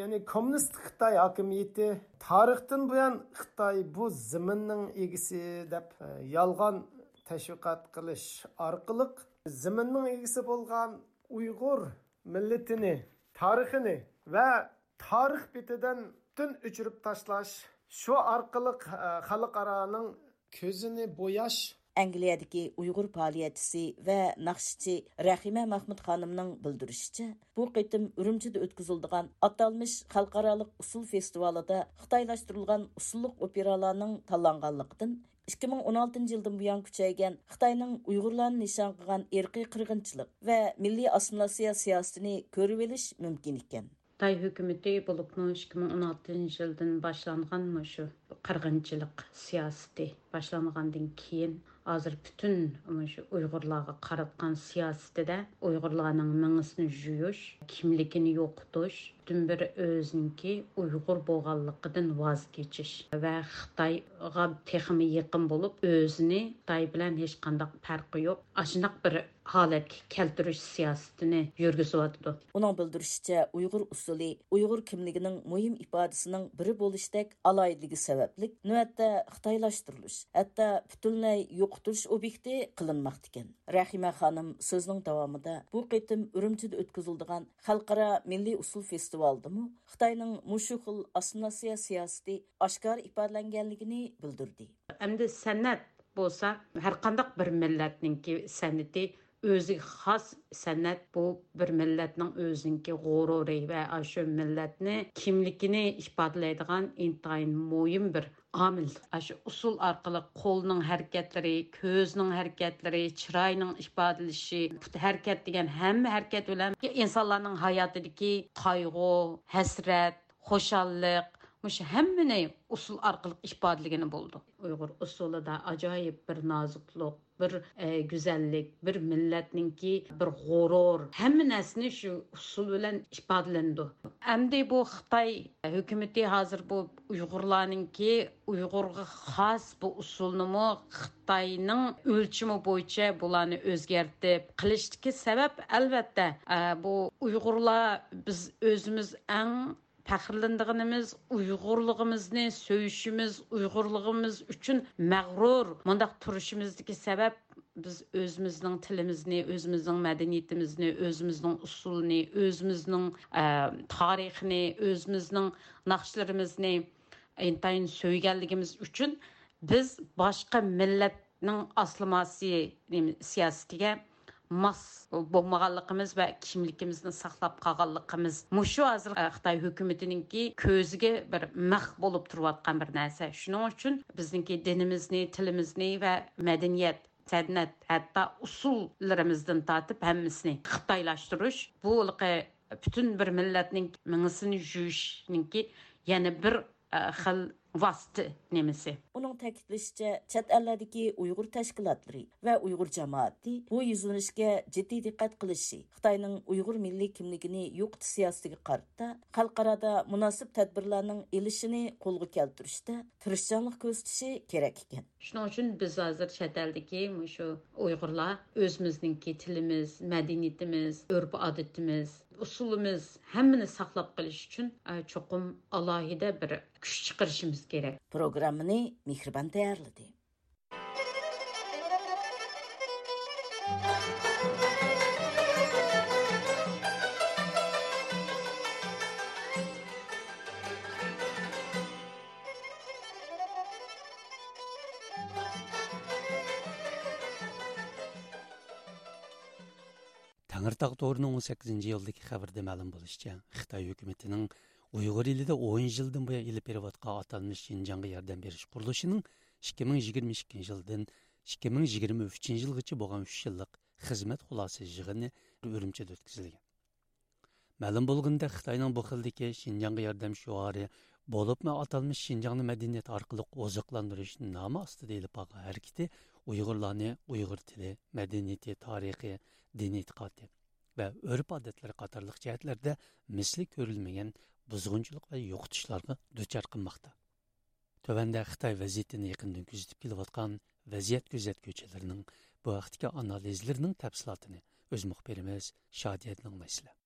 يەنى كوممۇنىست خىتاي ھاكىمىيىتى تارىختىن بۇيان خىتاي بۇ زېمىننىڭ ئىگىسى دەپ، ئە، يالغان تەشۋىقات قىلىش ئارقىلىق زېمىننىڭ ئىگىسى بولغان ئۇيغۇر مىللىتىنى، تارىخىنى ۋە تارىخ بېتىدىن پۈتۈن ئۆچۈرۈپ تاشلاش، شۇ ئارقىلىق، ئە، خەلقئارانىڭ كۆزىنى بوياش. ئەنگلىيەدىكى ئۇيغۇر پائالىيەتچىسى ۋە ناخشىچى رەھىمە مەخمۇت خانىمنىڭ بىلدۈرۈشىچە، بۇ قېتىم ئۈرۈمچىدە ئۆتكۈزۈلىدىغان ئاتالمىش خەلقئارالىق ئۇسسۇل فېستىۋالىدا خىتايلاشتۇرۇلغان ئۇسسۇللۇق ئوپېرالارنىڭ تاللانغانلىقىدىن، ئىككى مىڭ ئون ئالتىنچى يىلدىن بۇيان كۈچەيگەن خىتاينىڭ ئۇيغۇرلارنى نىشان قىلغان ئىرقىي قىرغىنچىلىق ۋە مىللىي ئاسسىمىلياتسىيە سىياسىتىنى كۆرۈۋېلىش مۇمكىن ئىكەن. خىتاي ھۆكۈمىتى بولۇپمۇ ئىككى مىڭ ئون ئالتىنچى يىلدىن باشلانغان مۇشۇ قىرغىنچىلىق سىياسىتى باشلانغاندىن كېيىن، ھازىر پۈتۈن مۇشۇ ئۇيغۇرلارغا قاراتقان سىياسىتىدە ئۇيغۇرلارنىڭ مېڭىسىنى جۇيۇش، كىملىكىنى يوقىتىش، پۈتۈن بىر ئۆزىنىڭكى ئۇيغۇر بولغانلىقىدىن ۋاز كېچىش ۋە خىتايغا تېخىمۇ يېقىن بولۇپ، ئۆزىنى خىتاي بىلەن ھېچقانداق پەرقى يوق، ئاشۇنداق بىر ھالەتكە كەلتۈرۈش سىياسىتىنى يۈرگۈزۈۋاتىدۇ. ئۇنىڭ بىلدۈرۈشىچە، ئۇيغۇر ئۇسسۇلى ئۇيغۇر كىملىكىنىڭ مۇھىم ئىپادىسىنىڭ بىرى بولۇشتەك ئالاھىدىلىكى سەۋەبلىك، نۆۋەتتە خىتايلاشتۇرۇلۇش، ھەتتا پۈتۈنلەي يوقىتىلىش ئوبيېكتى قىلىنماقتىكەن. رەھىمە خانىم سۆزىنىڭ داۋامىدا، بۇ قېتىم ئۈرۈمچىدە ئۆتكۈزۈلىدىغان خەلقئارا مىللىي ئۇسسۇل فېستىۋالىدىمۇ خىتاينىڭ مۇشۇ خىل ئاسسىمىلياتسىيە سىياسىتى ئاشكارا ئىپادىلەنگەنلىكىنى بىلدۈردى. ئەمدى سەنئەت بولسا، ھەرقانداق بىر مىللەتنىڭكى سەنئىتى ئۆزىگە خاس سەنئەت، بۇ بىر مىللەتنىڭ ئۆزىنىڭكى غۇرۇرى ۋە ئاشۇ مىللەتنى، كىملىكىنى ئىپادىلەيدىغان ئىنتايىن مۇھىم بىر ئامىل. ئاشۇ ئۇسسۇل ئارقىلىق قولنىڭ ھەرىكەتلىرى، كۆزنىڭ ھەرىكەتلىرى، چىراينىڭ ئىپادىلىشى، پۇت ھەرىكەت دېگەن ھەممە ھەرىكەت بىلەن ئىنسانلارنىڭ ھاياتىدىكى قايغۇ، ھەسرەت، خۇشاللىق، مۇشۇ ھەممىنى ئۇسسۇل ئارقىلىق ئىپادىلىگىلى بولىدۇ. ئۇيغۇر ئۇسسۇلىدا ئاجايىپ بىر نازۇكلۇق، بىر، ئە، گۈزەللىك، بىر مىللەتنىڭكى بىر غۇرۇر، ھەممە نەرسىنى شۇ ئۇسسۇل بىلەن ئىپادىلىنىدۇ. ئەمدى بۇ خىتاي ھۆكۈمىتى ھازىر بۇ ئۇيغۇرلارنىڭكى ئۇيغۇرغا خاس بۇ ئۇسسۇلنىمۇ خىتاينىڭ ئۆلچىمى بويىچە بۇلارنى ئۆزگەرتىپ قىلىشتىكى سەۋەب، ئەلۋەتتە، ئە، بۇ ئۇيغۇرلار، بىز ئۆزىمىز ئەڭ پەخىرلىنىدىغىنىمىز، ئۇيغۇرلۇقىمىزنى سۆيۈشىمىز، ئۇيغۇرلۇقىمىز ئۈچۈن مەغرۇر مۇنداق تۇرۇشىمىزدىكى سەۋەب، بىز ئۆزىمىزنىڭ تىلىمىزنى، ئۆزىمىزنىڭ مەدەنىيىتىمىزنى، ئۆزىمىزنىڭ ئۇسسۇلىنى، ئۆزىمىزنىڭ، ئە، تارىخىنى، ئۆزىمىزنىڭ ناخشىلىرىمىزنى ئىنتايىن سۆيگەنلىكىمىز ئۈچۈن بىز باشقا مىللەتنىڭ ئاسسىمىلياتسىيە، نېمە، سىياسىتىگە ماس بولمىغانلىقىمىز ۋە كىملىكىمىزنى ساقلاپ قالغانلىقىمىز، مۇشۇ ھازىر، ئە، خىتاي ھۆكۈمىتىنىڭكى كۆزىگە بىر مىخ بولۇپ تۇرۇۋاتقان بىر نەرسە. شۇنىڭ ئۈچۈن بىزنىڭكى دىنىمىزنى، تىلىمىزنى ۋە مەدەنىيەت، سەنئەت، ھەتتا ئۇسسۇللىرىمىزدىن تارتىپ ھەممىسىنى خىتايلاشتۇرۇش، بۇ ھېلىقى پۈتۈن بىر مىللەتنىڭ مېڭىسىنى جۇيۇشنىڭكى يەنە بىر، ئە، خىل ۋاسىتە نېمىسى. ئۇنىڭ تەكىتلىشىچە، چەت ئەللەردىكى ئۇيغۇر تەشكىلاتلىرى ۋە ئۇيغۇر جامائىتى بۇ يۈزلىنىشكە جىددىي دىققەت قىلىشى، خىتاينىڭ ئۇيغۇر مىللىي كىملىكىنى يوقىتىش سىياسىتىگە قارىتا خەلقئارادا مۇناسىپ تەدبىرلەرنىڭ ئېلىشىنى قولغا كەلتۈرۈشتە تىرىشچانلىق كۆرسىتىشى كېرەك ئىكەن. شۇنىڭ ئۈچۈن بىز ھازىر چەت ئەلدىكى مۇشۇ ئۇيغۇرلار ئۆزىمىزنىڭكى تىلىمىز، مەدەنىيىتىمىز، ئۆرپ-ئادىتىمىز، ئۇسۇلىمىز، ھەممىنى ساقلاپ قېلىش ئۈچۈن، ئە، چوقۇم ئالاھىدە بىر كۈچ چىقىرىشىمىز كېرەك. پروگراممىنى مېھرىبان تەييارلىدى. تەڭرىتاغ تورىنىڭ ئون سەككىزىنچى ئىيۇلدىكى خەۋىرىدە مەلۇم بولۇشىچە، خىتاي ھۆكۈمىتىنىڭ ئۇيغۇر ئېلىدە ئون يىلدىن بۇيان ئېلىپ بېرىۋاتقان ئاتالمىش شىنجاڭغا ياردەم بېرىش قۇرۇلۇشىنىڭ ئىككى مىڭ يىگىرمە ئىككىنچى يىلدىن ئىككى مىڭ يىگىرمە ئۈچىنچى يىلغىچە بولغان ئۈچ يىللىق خىزمەت خۇلاسە يىغىنى ئۈرۈمچىدە ئۆتكۈزۈلگەن. مەلۇم بولغىنىدەك، خىتاينىڭ بۇ خىلدىكى شىنجاڭغا ياردەم شوئارى، بولۇپمۇ ئاتالمىش شىنجاڭنى مەدەنىيەت ئارقىلىق ئوزۇقلاندۇرۇش نامى ئاستىدا ئېلىپ بارغان ھەرىكىتى ئۇيغۇرلارنى ئۇيغۇر تىلى، مەدەنىيىتى، تارىخى، دىنىي ئېتىقادى ۋە ئۆرپ-ئادەتلىرى قاتارلىق جەھەتلەردە مىسلى كۆرۈلمىگەن بۇزغۇنچىلىق ۋە يوقىتىشلارغا دۇچار قىلماقتا. تۆۋەندە خىتاي ۋەزىيىتىنى يېقىندىن كۆزىتىپ كېلىۋاتقان ۋەزىيەت كۆزەتكۈچىلىرىنىڭ بۇ ھەقتىكى ئانالىزلىرىنىڭ تەپسىلاتىنى ئۆز مۇخبىرىمىز شادىيەدىن ئاڭلايسىلەر.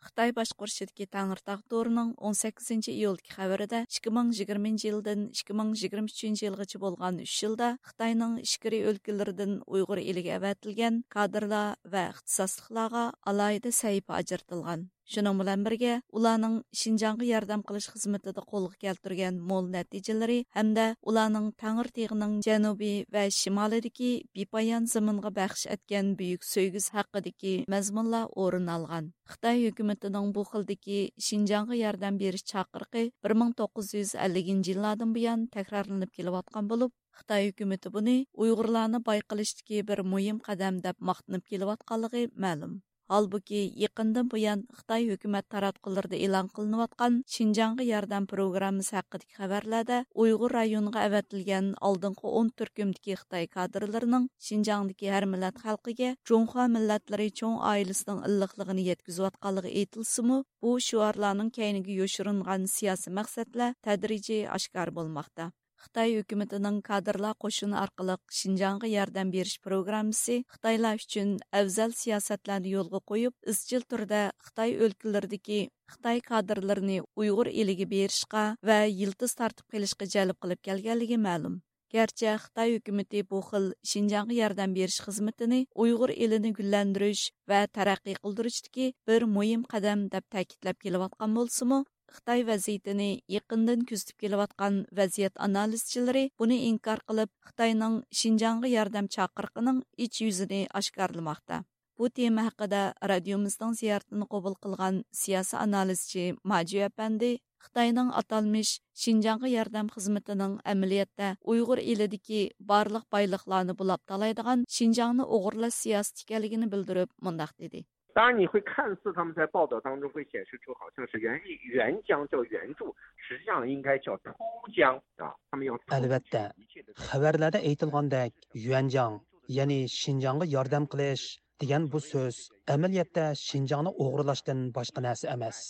خىتاي باشقۇرۇشىدىكى تەڭرىتاغ تورىنىڭ ئون سەككىزىنچى ئىيۇلدىكى خەۋىرىدە، ئىككى مىڭ يىگىرمىنچى يىلدىن ئىككى مىڭ يىگىرمە ئۈچىنچى يىلغىچە بولغان ئۈچ يىلدا خىتاينىڭ ئىچكىرى ئۆلكىلىرىدىن ئۇيغۇر ئېلىگە ئەۋەتىلگەن كادىرلار ۋە ئىختىساسلىقلارغا ئالاھىدە سەھىپە ئاجرىتىلغان. شۇنىڭ بىلەن بىرگە، ئۇلارنىڭ شىنجاڭغا ياردەم قىلىش خىزمىتىدە قولغا كەلتۈرگەن مول نەتىجىلىرى ھەمدە ئۇلارنىڭ تەڭرىتېغىنىڭ جەنۇبى ۋە شىمالىدىكى بىپايان زېمىنغا بەخش ئەتكەن بۈيۈك سۆيگۈسى ھەققىدىكى مەزمۇنلار ئورۇن ئالغان. خىتاي ھۆكۈمىتىنىڭ بۇ خىلدىكى شىنجاڭغا ياردەم بېرىش چاقىرىقى بىر مىڭ توققۇز يۈز ئەللىكىنچى يىللاردىن بۇيان تەكرارلىنىپ كېلىۋاتقان بولۇپ، خىتاي ھۆكۈمىتى بۇنى ئۇيغۇرلارنى باي قىلىشتىكى بىر مۇھىم قەدەم دەپ ماختىنىپ كېلىۋاتقانلىقى مەلۇم. ھالبۇكى، يېقىندىن بۇيان خىتاي ھۆكۈمەت تاراتقۇلىرىدا ئېلان قىلىنىۋاتقان شىنجاڭغا ياردەم پروگراممىسى ھەققىدىكى خەۋەرلەردە ئۇيغۇر رايونىغا ئەۋەتىلگەن ئالدىنقى ئون تۈركۈمدىكى خىتاي كادىرلىرىنىڭ شىنجاڭدىكى ھەر مىللەت خەلقىگە جۇڭخۇا مىللەتلىرى چوڭ ئائىلىسىنىڭ ئىللىقلىقىنى يەتكۈزۈۋاتقانلىقى ئېيتىلسىمۇ، بۇ شوئارلارنىڭ كەينىگە يوشۇرۇنغان سىياسىي مەقسەتلەر تەدرىجىي ئاشكارا بولماقتا. خىتاي ھۆكۈمىتىنىڭ كادىرلار قوشۇنى ئارقىلىق شىنجاڭغا ياردەم بېرىش پروگراممىسى خىتايلار ئۈچۈن ئەۋزەل سىياسەتلەرنى يولغا قويۇپ، ئىزچىل تۈردە خىتاي ئۆلكىلىرىدىكى خىتاي كادىرلىرىنى ئۇيغۇر ئېلىگە بېرىشقا ۋە يىلتىز تارتىپ قېلىشقا جەلپ قىلىپ كەلگەنلىكى مەلۇم. گەرچە خىتاي ھۆكۈمىتى بۇ خىل شىنجاڭغا ياردەم بېرىش خىزمىتىنى ئۇيغۇر ئېلىنى گۈللەندۈرۈش ۋە تەرەققىي قىلدۇرۇشتىكى بىر مۇھىم قەدەم دەپ تەكىتلەپ كېلىۋاتقان بولسىمۇ، خىتاي ۋەزىيىتىنى يېقىندىن كۆزىتىپ كېلىۋاتقان ۋەزىيەت ئانالىزچىلىرى بۇنى ئىنكار قىلىپ، خىتاينىڭ شىنجاڭغا ياردەم چاقىرىقىنىڭ ئىچ يۈزىنى ئاشكارىلىماقتا. بۇ تېما ھەققىدە رادىيومىزنىڭ زىيارىتىنى قوبۇل قىلغان سىياسىي ئانالىزچى ماجۈ ئەپەندى خىتاينىڭ ئاتالمىش شىنجاڭغا ياردەم خىزمىتىنىڭ ئەمەلىيەتتە ئۇيغۇر ئېلىدىكى بارلىق بايلىقلارنى بۇلاپ تالايدىغان شىنجاڭنى ئوغرىلاش سىياسىتى ئىكەنلىكىنى بىلدۈرۈپ مۇنداق دېدى. 当然，你会看似他们在报道当中会显示出好像是援援疆叫援助，实际上应该叫偷疆啊，他们要偷取一切的。 ئەلۋەتتە، خەۋەرلەردە ئېيتىلغاندەك، يۈەنجاڭ، يەنى شىنجاڭغا ياردەم قىلىش دېگەن بۇ سۆز ئەمەلىيەتتە شىنجاڭنى ئوغرىلاشتىن باشقا نەرسە ئەمەس.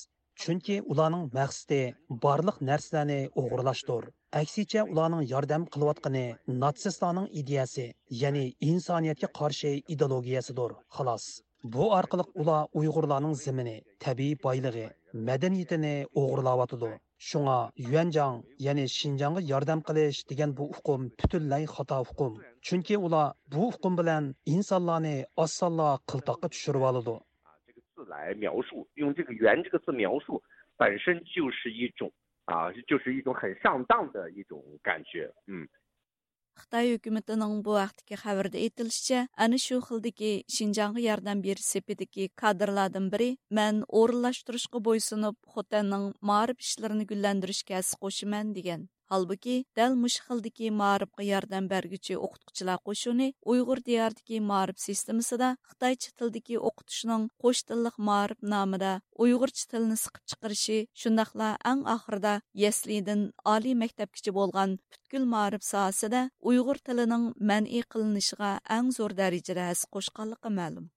چۈنكى ئۇلارنىڭ مەقسىتى بارلىق نەرسىلەرنى ئوغرىلاشتۇر. ئەكسىچە، ئۇلارنىڭ ياردەم قىلىۋاتقىنى ناتسىستلارنىڭ ئىدىيەسى، يەنى ئىنسانىيەتكە قارشى ئىدېئولوگىيەسىدۇر، خالاس. بۇ ئارقىلىق ئۇلار ئۇيغۇرلارنىڭ زېمىنى، تەبىئىي بايلىقى، مەدەنىيىتىنى ئوغرىلاۋاتىدۇ. شۇڭا يۈەنجاڭ، يەنى شىنجاڭغا ياردەم قىلىش دېگەن بۇ ئۇقۇم پۈتۈنلەي خاتا ئۇقۇم. چۈنكى ئۇلار بۇ ئۇقۇم بىلەن ئىنسانلارنى ئاسانلا قىلتاققا چۈشۈرۈۋالىدۇ. 这个字来描述，用这个“援”这个字描述，本身就是一种啊，就是一种很上当的一种感觉。嗯。 خىتاي ھۆكۈمىتىنىڭ بۇ ھەقتىكى خەۋىرىدە ئېيتىلىشىچە، ئەنە شۇ خىلدىكى شىنجاڭغا ياردەم بېرىش سېپىدىكى كادىرلاردىن بىرى، مەن ئورۇنلاشتۇرۇشقا بويسۇنۇپ، خوتەننىڭ مائارىپ ئىشلىرىنى گۈللەندۈرۈشكە ھەسسە قوشىمەن، دېگەن. ھالبۇكى، دەل مۇشۇ خىلدىكى مائارىپقا ياردەم بەرگۈچى ئوقۇتقۇچىلار قوشۇنى ئۇيغۇر دىيارىدىكى مائارىپ سىستېمىسىدا خىتايچە تىلدىكى ئوقۇتۇشنىڭ قوش تىللىق مائارىپ نامىدا ئۇيغۇرچە تىلنى سىقىپ چىقىرىشى، شۇنداقلا ئەڭ ئاخىرىدا يەسلىدىن ئالىي مەكتەپكىچە بولغان پۈتكۈل مائارىپ ساھەسىدە ئۇيغۇر تىلىنىڭ مەنئى قىلىنىشىغا ئەڭ زور دەرىجىدە ھەسسە قوشقانلىقى مەلۇم.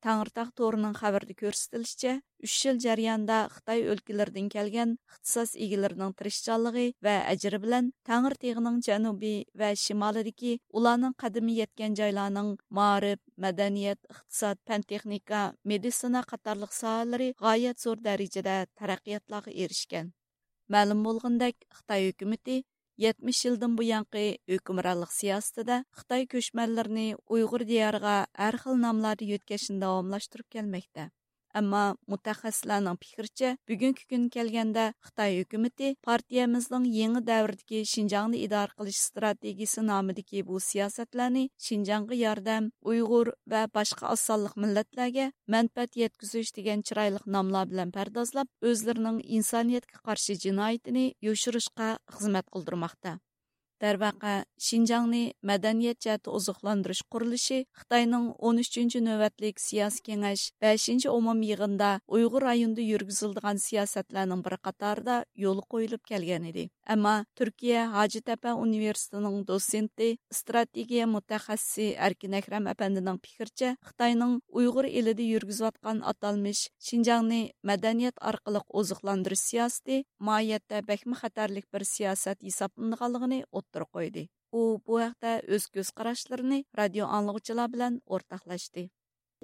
تەڭرىتاغ تورىنىڭ خەۋىرىدە كۆرسىتىلىشىچە، ئۈچ يىل جەريانىدا خىتاي ئۆلكىلىرىدىن كەلگەن ئىختىساس ئىگىلىرىنىڭ تىرىشچانلىقى ۋە ئەجرى بىلەن تەڭرىتېغىنىڭ جەنۇبى ۋە شىمالىدىكى ئۇلارنىڭ قەدىمى يەتكەن جايلارنىڭ مائارىپ، مەدەنىيەت، ئىقتىساد، پەن-تېخنىكا، مېدىتسىنا قاتارلىق ساھەلىرى غايەت زور دەرىجىدە تەرەققىياتلارغا ئېرىشكەن. مەلۇم بولغىنىدەك، خىتاي ھۆكۈمىتى يەتمىش يىلدىن بۇيانقى ھۆكۈمرانلىق سىياسىتىدە خىتاي كۆچمەنلىرىنى ئۇيغۇر دىيارىغا ھەر خىل ناملاردا يۆتكەشنى داۋاملاشتۇرۇپ كەلمەكتە. ئەمما مۇتەخەسسىسلەرنىڭ پىكرىچە، بۈگۈنكى كۈنگە كەلگەندە خىتاي ھۆكۈمىتى پارتىيەمىزنىڭ يېڭى دەۋردىكى شىنجاڭنى ئىدارە قىلىش ئىستراتېگىيىسى نامىدىكى بۇ سىياسەتلەرنى شىنجاڭغا ياردەم، ئۇيغۇر ۋە باشقا ئاز سانلىق مىللەتلەرگە مەنپەئەت يەتكۈزۈش دېگەن چىرايلىق ناملار بىلەن پەردازلاپ، ئۆزلىرىنىڭ ئىنسانىيەتكە قارشى جىنايىتىنى يوشۇرۇشقا خىزمەت قىلدۇرماقتا. دەرۋەقە، شىنجاڭنى مەدەنىيەت جەھەتتە ئوزۇقلاندۇرۇش قۇرۇلۇشى خىتاينىڭ ئون ئۈچىنچى نۆۋەتلىك سىياسىي كېڭەش بەشىنچى ئومۇمىي يىغىنىدا ئۇيغۇر رايونىدا يۈرگۈزۈلىدىغان سىياسەتلەرنىڭ بىرى قاتارىدا يولغا قويۇلۇپ كەلگەن ئىدى. ئەمما تۈركىيە ھاجىتەپە ئۇنىۋېرسىتېتىنىڭ دوتسېنتى، ئىستراتېگىيە مۇتەخەسسىسى ئەركىن ئەكرەم ئەپەندىنىڭ پىكرىچە، خىتاينىڭ ئۇيغۇر ئېلىدە يۈرگۈزۈۋاتقان ئاتالمىش شىنجاڭنى مەدەنىيەت ئارقىلىق ئوزۇقلاندۇرۇش سىياسىتى ماھىيەتتە بەكمۇ خەتەرلىك بىر سىياسەت ھېسابلىنىدىغانلىقىنى ئوتتۇرىغا قويدى. ئۇ بۇ ھەقتە ئۆز كۆز قاراشلىرىنى رادىيو ئاڭلىغۇچىلار بىلەن ئورتاقلاشتى.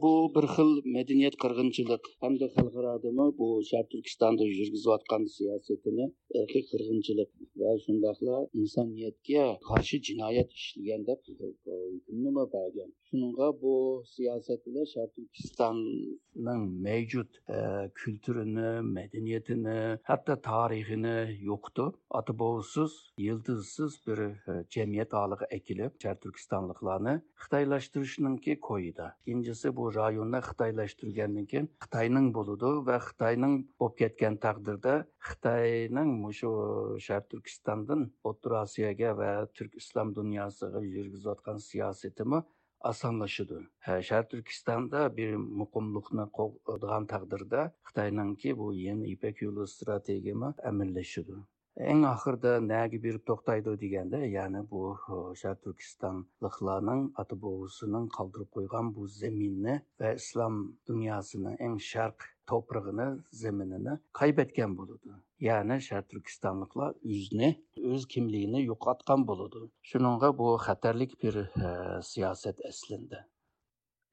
بۇ بىر خىل مەدەنىيەت قىرغىنچىلىق ھەمدە خەلقئارادىمۇ بۇ شەرقىي تۈركىستاندا يۈرگۈزۈۋاتقان سىياسىتىنى ئىرقىي قىرغىنچىلىق ۋە شۇنداقلا ئىنسانىيەتكە قارشى جىنايەت ئىشلىگەن دەپ ھۆكۈمنىمۇ بەرگەن. شۇنىڭغا بۇ سىياسەت بىلەن شەرقىي تۈركىستاننىڭ مەۋجۇت، ئە، كۈلتۈرىنى، مەدەنىيىتىنى، ھەتتا تارىخىنى يوقىتىپ، ئاتا بوۋىسىز، يىلتىزسىز بىر، ئە، جەمئىيەت ھالىغا ئەكېلىپ، شەرقىي تۈركىستانلىقلارنى خىتايلاشتۇرۇشنىڭكى كويىدا. ئىككىنچىسى، بۇ رايوننى خىتايلاشتۇرغاندىن كېيىن خىتاينىڭ بولىدۇ ۋە خىتاينىڭ بولۇپ كەتكەن تەقدىردە، خىتاينىڭ مۇشۇ شەرقىي تۈركىستاندىن ئوتتۇرا ئاسىياگە ۋە تۈرك ئىسلام دۇنياسىغا يۈرگۈزۈۋاتقان سىياسىتىمۇ ئاسانلىشىدۇ. ھە، شەرقىي تۈركىستاندا بىر مۇقىملىقنى قوغدىغان تەقدىردە، خىتاينىڭكى بۇ يېڭى يىپەك يولى ئىستراتېگىيىمۇ ئەمەلىيلىشىدۇ. ئەڭ ئاخىرىدا نەگە بېرىپ توختايدۇ دېگەندە، يەنى بۇ، شەرقىي تۈركىستانلىقلارنىڭ ئاتا بوۋىسىنىڭ قالدۇرۇپ قويغان بۇ زېمىننى ۋە ئىسلام دۇنياسىنىڭ ئەڭ شەرق توپرىقىنى، زېمىنىنى قايبەتكەن بولىدۇ. يەنى شەرقىي تۈركىستانلىقلار ئۆزىنى، ئۆز كىملىكىنى يوقاتقان بولىدۇ. شۇنىڭغا بۇ خەتەرلىك بىر، ئە، سىياسەت ئەسلىندە.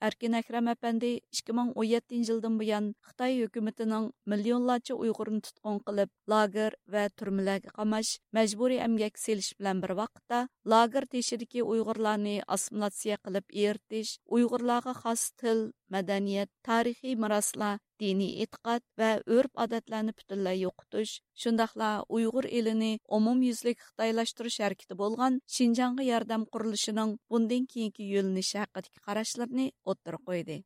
ئەركىن ئەكرەم ئەپەندى ئىككى مىڭ ئون يەتتىنچى يىلدىن بۇيان خىتاي ھۆكۈمىتىنىڭ مىليونلارچە ئۇيغۇرنى تۇتقۇن قىلىپ، لاگېر ۋە تۈرمىلەرگە قاماش، مەجبۇرىي ئەمگەككە سېلىش بىلەن بىر ۋاقىتتا، لاگېر تېشىدىكى ئۇيغۇرلارنى ئاسسىمىلياتسىيە قىلىپ ئېرىتىش، ئۇيغۇرلارغا خاس تىل، مەدەنىيەت، تارىخىي مىراسلار، دىنىي ئېتىقاد ۋە ئۆرپ-ئادەتلەرنى پۈتۈنلەي يوقىتىش، شۇنداقلا ئۇيغۇر ئېلىنى ئومۇميۈزلۈك خىتايلاشتۇرۇش ھەرىكىتى بولغان شىنجاڭغا ياردەم قۇرۇلۇشىنىڭ بۇندىن كېيىنكى يۆنىلىشى ھەققىدىكى قاراشلىرىنى ئوتتۇرىغا قويدى.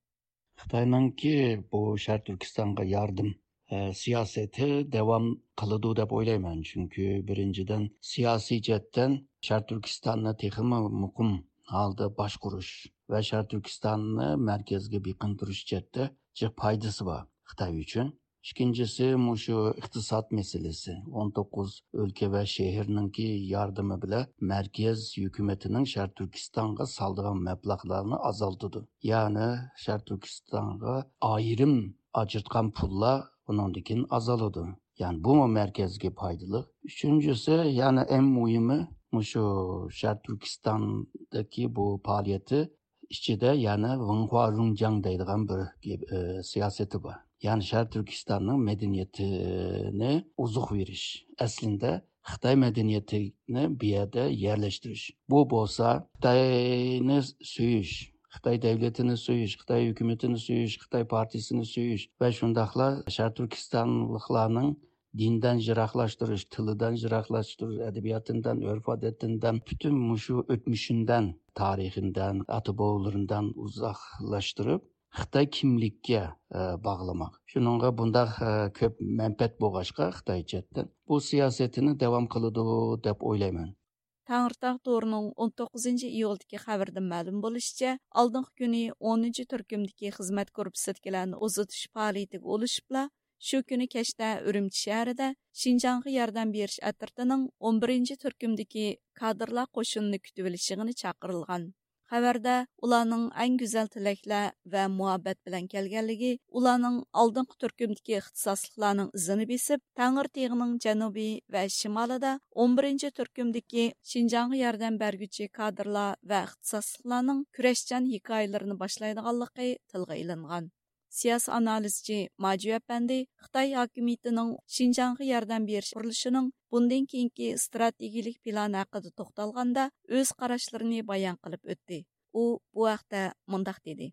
خىتاينىڭكى بۇ شەرقىي تۈركىستانغا ياردەم، ئە، سىياسىتى داۋام قىلىدۇ دەپ ئويلايمەن. چۈنكى بىرىنچىدىن، سىياسىي جەھەتتىن شەرقىي تۈركىستاننى تېخىمۇ مۇقىم ھالدا باشقۇرۇش ۋە شەرقىي تۈركىستاننى مەركەزگە بېقىندۇرۇش جەھەتتە جىق پايدىسى بار خىتاي ئۈچۈن. ئىككىنچىسى، مۇشۇ ئىقتىساد مەسىلىسى. ئون توققۇز ئۆلكە ۋە شەھەرنىڭكى ياردىمى بىلەن مەركەز ھۆكۈمىتىنىڭ شەرقىي تۈركىستانغا سالىدىغان مەبلەغلەرنى ئازالتىدۇ. يەنى شەرقىي تۈركىستانغا ئايرىم ئاجرىتقان پۇللار ئۇنىڭدىن كېيىن ئازالىدۇ. يەنى بۇمۇ مەركەزگە پايدىلىق. ئۈچىنچىسى، يەنى ئەڭ مۇھىمى، مۇشۇ شەرقىي تۈركىستاندىكى بۇ پائالىيىتى ئىچىدە يەنە ۋېنخۇا رۇڭجياڭ دەيدىغان بىر گەپ، ئى، سىياسىتى بار. يەنى شەرقىي تۈركىستاننىڭ مەدەنىيىتىنى ئوزۇق بېرىش. ئەسلىندە خىتاي مەدەنىيىتىنى بۇ يەردە يەرلەشتۈرۈش. بۇ بولسا خىتاينى سۆيۈش، خىتاي دەۋلىتىنى سۆيۈش، خىتاي ھۆكۈمىتىنى سۆيۈش، خىتاي پارتىيىسىنى سۆيۈش ۋە شۇنداقلا شەرقىي تۈركىستانلىقلارنىڭ دىندىن يىراقلاشتۇرۇش، تىلىدىن يىراقلاشتۇرۇش، ئەدەبىياتىندىن، ئۆرپ-ئادىتىندىن، پۈتۈن مۇشۇ ئۆتمۈشىندىن، تارىخىندىن، ئاتا-بوۋىلىرىندىن ئۇزاقلاشتۇرۇپ، خىتاي كىملىككە، ئە، باغلىماق. شۇنىڭغا بۇنداق، ئە، كۆپ مەنپەئەت بولغاچقا خىتاي چەتتىن بۇ سىياسىتىنى داۋام قىلىدۇ دەپ ئويلايمەن. تەڭرىتاغ تورىنىڭ ئون توققۇزىنچى ئىيۇلدىكى خەۋىرىدىن مەلۇم بولۇشىچە، ئالدىنقى كۈنى ئونىنچى تۈركۈمدىكى خىزمەت گۇرۇپپىسىدىكىلەرنى ئۇزىتىش پائالىيىتىگە ئۇلىشىپلا، شۇ كۈنى كەچتە ئۈرۈمچى شەھىرىدە شىنجاڭغا ياردەم بېرىش ئەترىتىنىڭ ئون بىرىنچى تۈركۈمدىكى كادىرلار قوشۇنىنى كۈتۈۋېلىش يىغىنى چاقىرىلغان. خەۋەردە ئۇلارنىڭ ئەڭ گۈزەل تىلەكلەر ۋە مۇھەببەت بىلەن كەلگەنلىكى، ئۇلارنىڭ ئالدىنقى تۈركۈمدىكى ئىختىساسلىقلارنىڭ ئىزىنى بېسىپ، تەڭرىتېغىنىڭ جەنۇبى ۋە شىمالىدا ئون بىرىنچى تۈركۈمدىكى شىنجاڭغا ياردەم بەرگۈچى كادىرلار ۋە ئىختىساسلىقلارنىڭ كۈرەشچان ھېكايىلىرىنى باشلايدىغانلىقى تىلغا ئېلىنغان. سىياسىي ئانالىزچى ماجۈ ئەپەندى خىتاي ھاكىمىيىتىنىڭ شىنجاڭغا ياردەم بېرىش قۇرۇلۇشىنىڭ بۇندىن كېيىنكى ئىستراتېگىيىلىك پىلانى ھەققىدە توختالغاندا، ئۆز قاراشلىرىنى بايان قىلىپ ئۆتتى. ئۇ بۇ ھەقتە مۇنداق دېدى.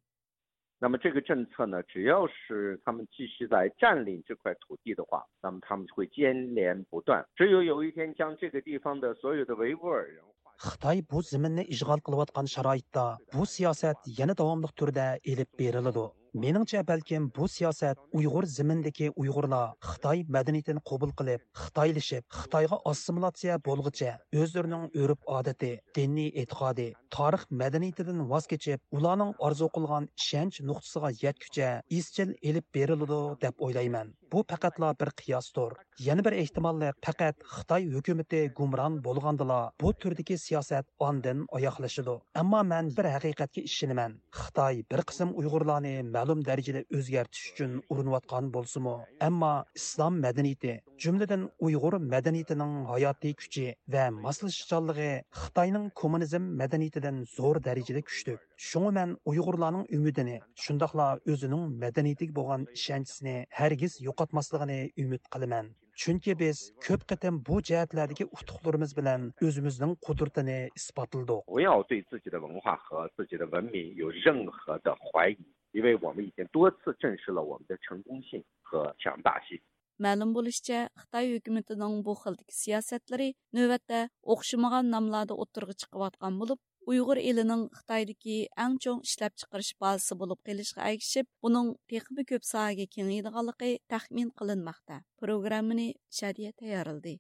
那么这个政策呢，只要是他们继续在占领这块土地的话，那么他们会接连不断。只有有一天将这个地方的所有的维吾尔人 خىتاي بۇ زېمىننى ئىشغال قىلىۋاتقان شارائىتتا بۇ سىياسەت يەنە داۋاملىق تۈردە ئېلىپ بېرىلىدۇ. مېنىڭچە، بەلكىم بۇ سىياسەت ئۇيغۇر زېمىنىدىكى ئۇيغۇرلار خىتاي مەدەنىيىتىنى قوبۇل قىلىپ، خىتايلىشىپ، خىتايغا ئاسسىمىلاتسىيە بولغۇچە ئۆزلىرىنىڭ ئۆرپ-ئادىتى، دىنىي ئېتىقادى، تارىخ مەدەنىيىتىدىن ۋاز كېچىپ، ئۇلارنىڭ ئارزۇ قىلغان ئىشەنچ نۇقتىسىغا يەتكۈچە ئىزچىل ئېلىپ بېرىلىدۇ دەپ ئويلايمەن. بۇ پەقەتلا بىر قىياستۇر. يەنە بىر ئېھتىماللىق، پەقەت خىتاي ھۆكۈمىتى گۇمران بولغاندىلا بۇ تۈردىكى سىياسەت ئاندىن ئاياغلىشىدۇ. ئەمما مەن بىر ھەقىقەتكە ئىشىنىمەن. خىتاي بىر قىسىم ئۇيغۇرلارنى مەلۇم دەرىجىدە ئۆزگەرتىش ئۈچۈن ئۇرۇنۇۋاتقان بولسىمۇ، ئەمما ئىسلام مەدەنىيىتى، جۈملىدىن ئۇيغۇر مەدەنىيىتىنىڭ ھاياتىي كۈچى ۋە ماسلىشىشچانلىقى خىتاينىڭ كوممۇنىزم مەدەنىيىتىدىن زور دەرىجىدە كۈچلۈك. شۇڭا مەن ئۇيغۇرلارنىڭ ئۈمىدىنى، شۇنداقلا ئۆزىنىڭ مەدەنىيىتىگە بولغان ئىشەنچىسىنى ھەرگىز يوقاتماسلىقىنى ئۈمىد قىلىمەن. چۈنكى بىز كۆپ قېتىم بۇ جەھەتلەردىكى ئۇتۇقلىرىمىز بىلەن ئۆزىمىزنىڭ قۇدرىتىنى ئىسپاتلىدۇق. 不要对自己的文化和自己的文明有任何的怀疑，因为我们已经多次证实了我们的成功性和强大性。 مەلۇم بولۇشىچە، خىتاي ھۆكۈمىتىنىڭ بۇ خىلدىكى سىياسەتلىرى نۆۋەتتە ئوخشىمىغان ناملاردا ئوتتۇرىغا چىقىۋاتقان بولۇپ، ئۇيغۇر ئېلىنىڭ خىتايدىكى ئەڭ چوڭ ئىشلەپچىقىرىش بازىسى بولۇپ قېلىشىغا ئەگىشىپ، بۇنىڭ تېخىمۇ كۆپ ساھەگە كېڭىيىدىغانلىقى تەخمىن قىلىنماقتا. پروگراممىنى شادىيە تەييارلىدى.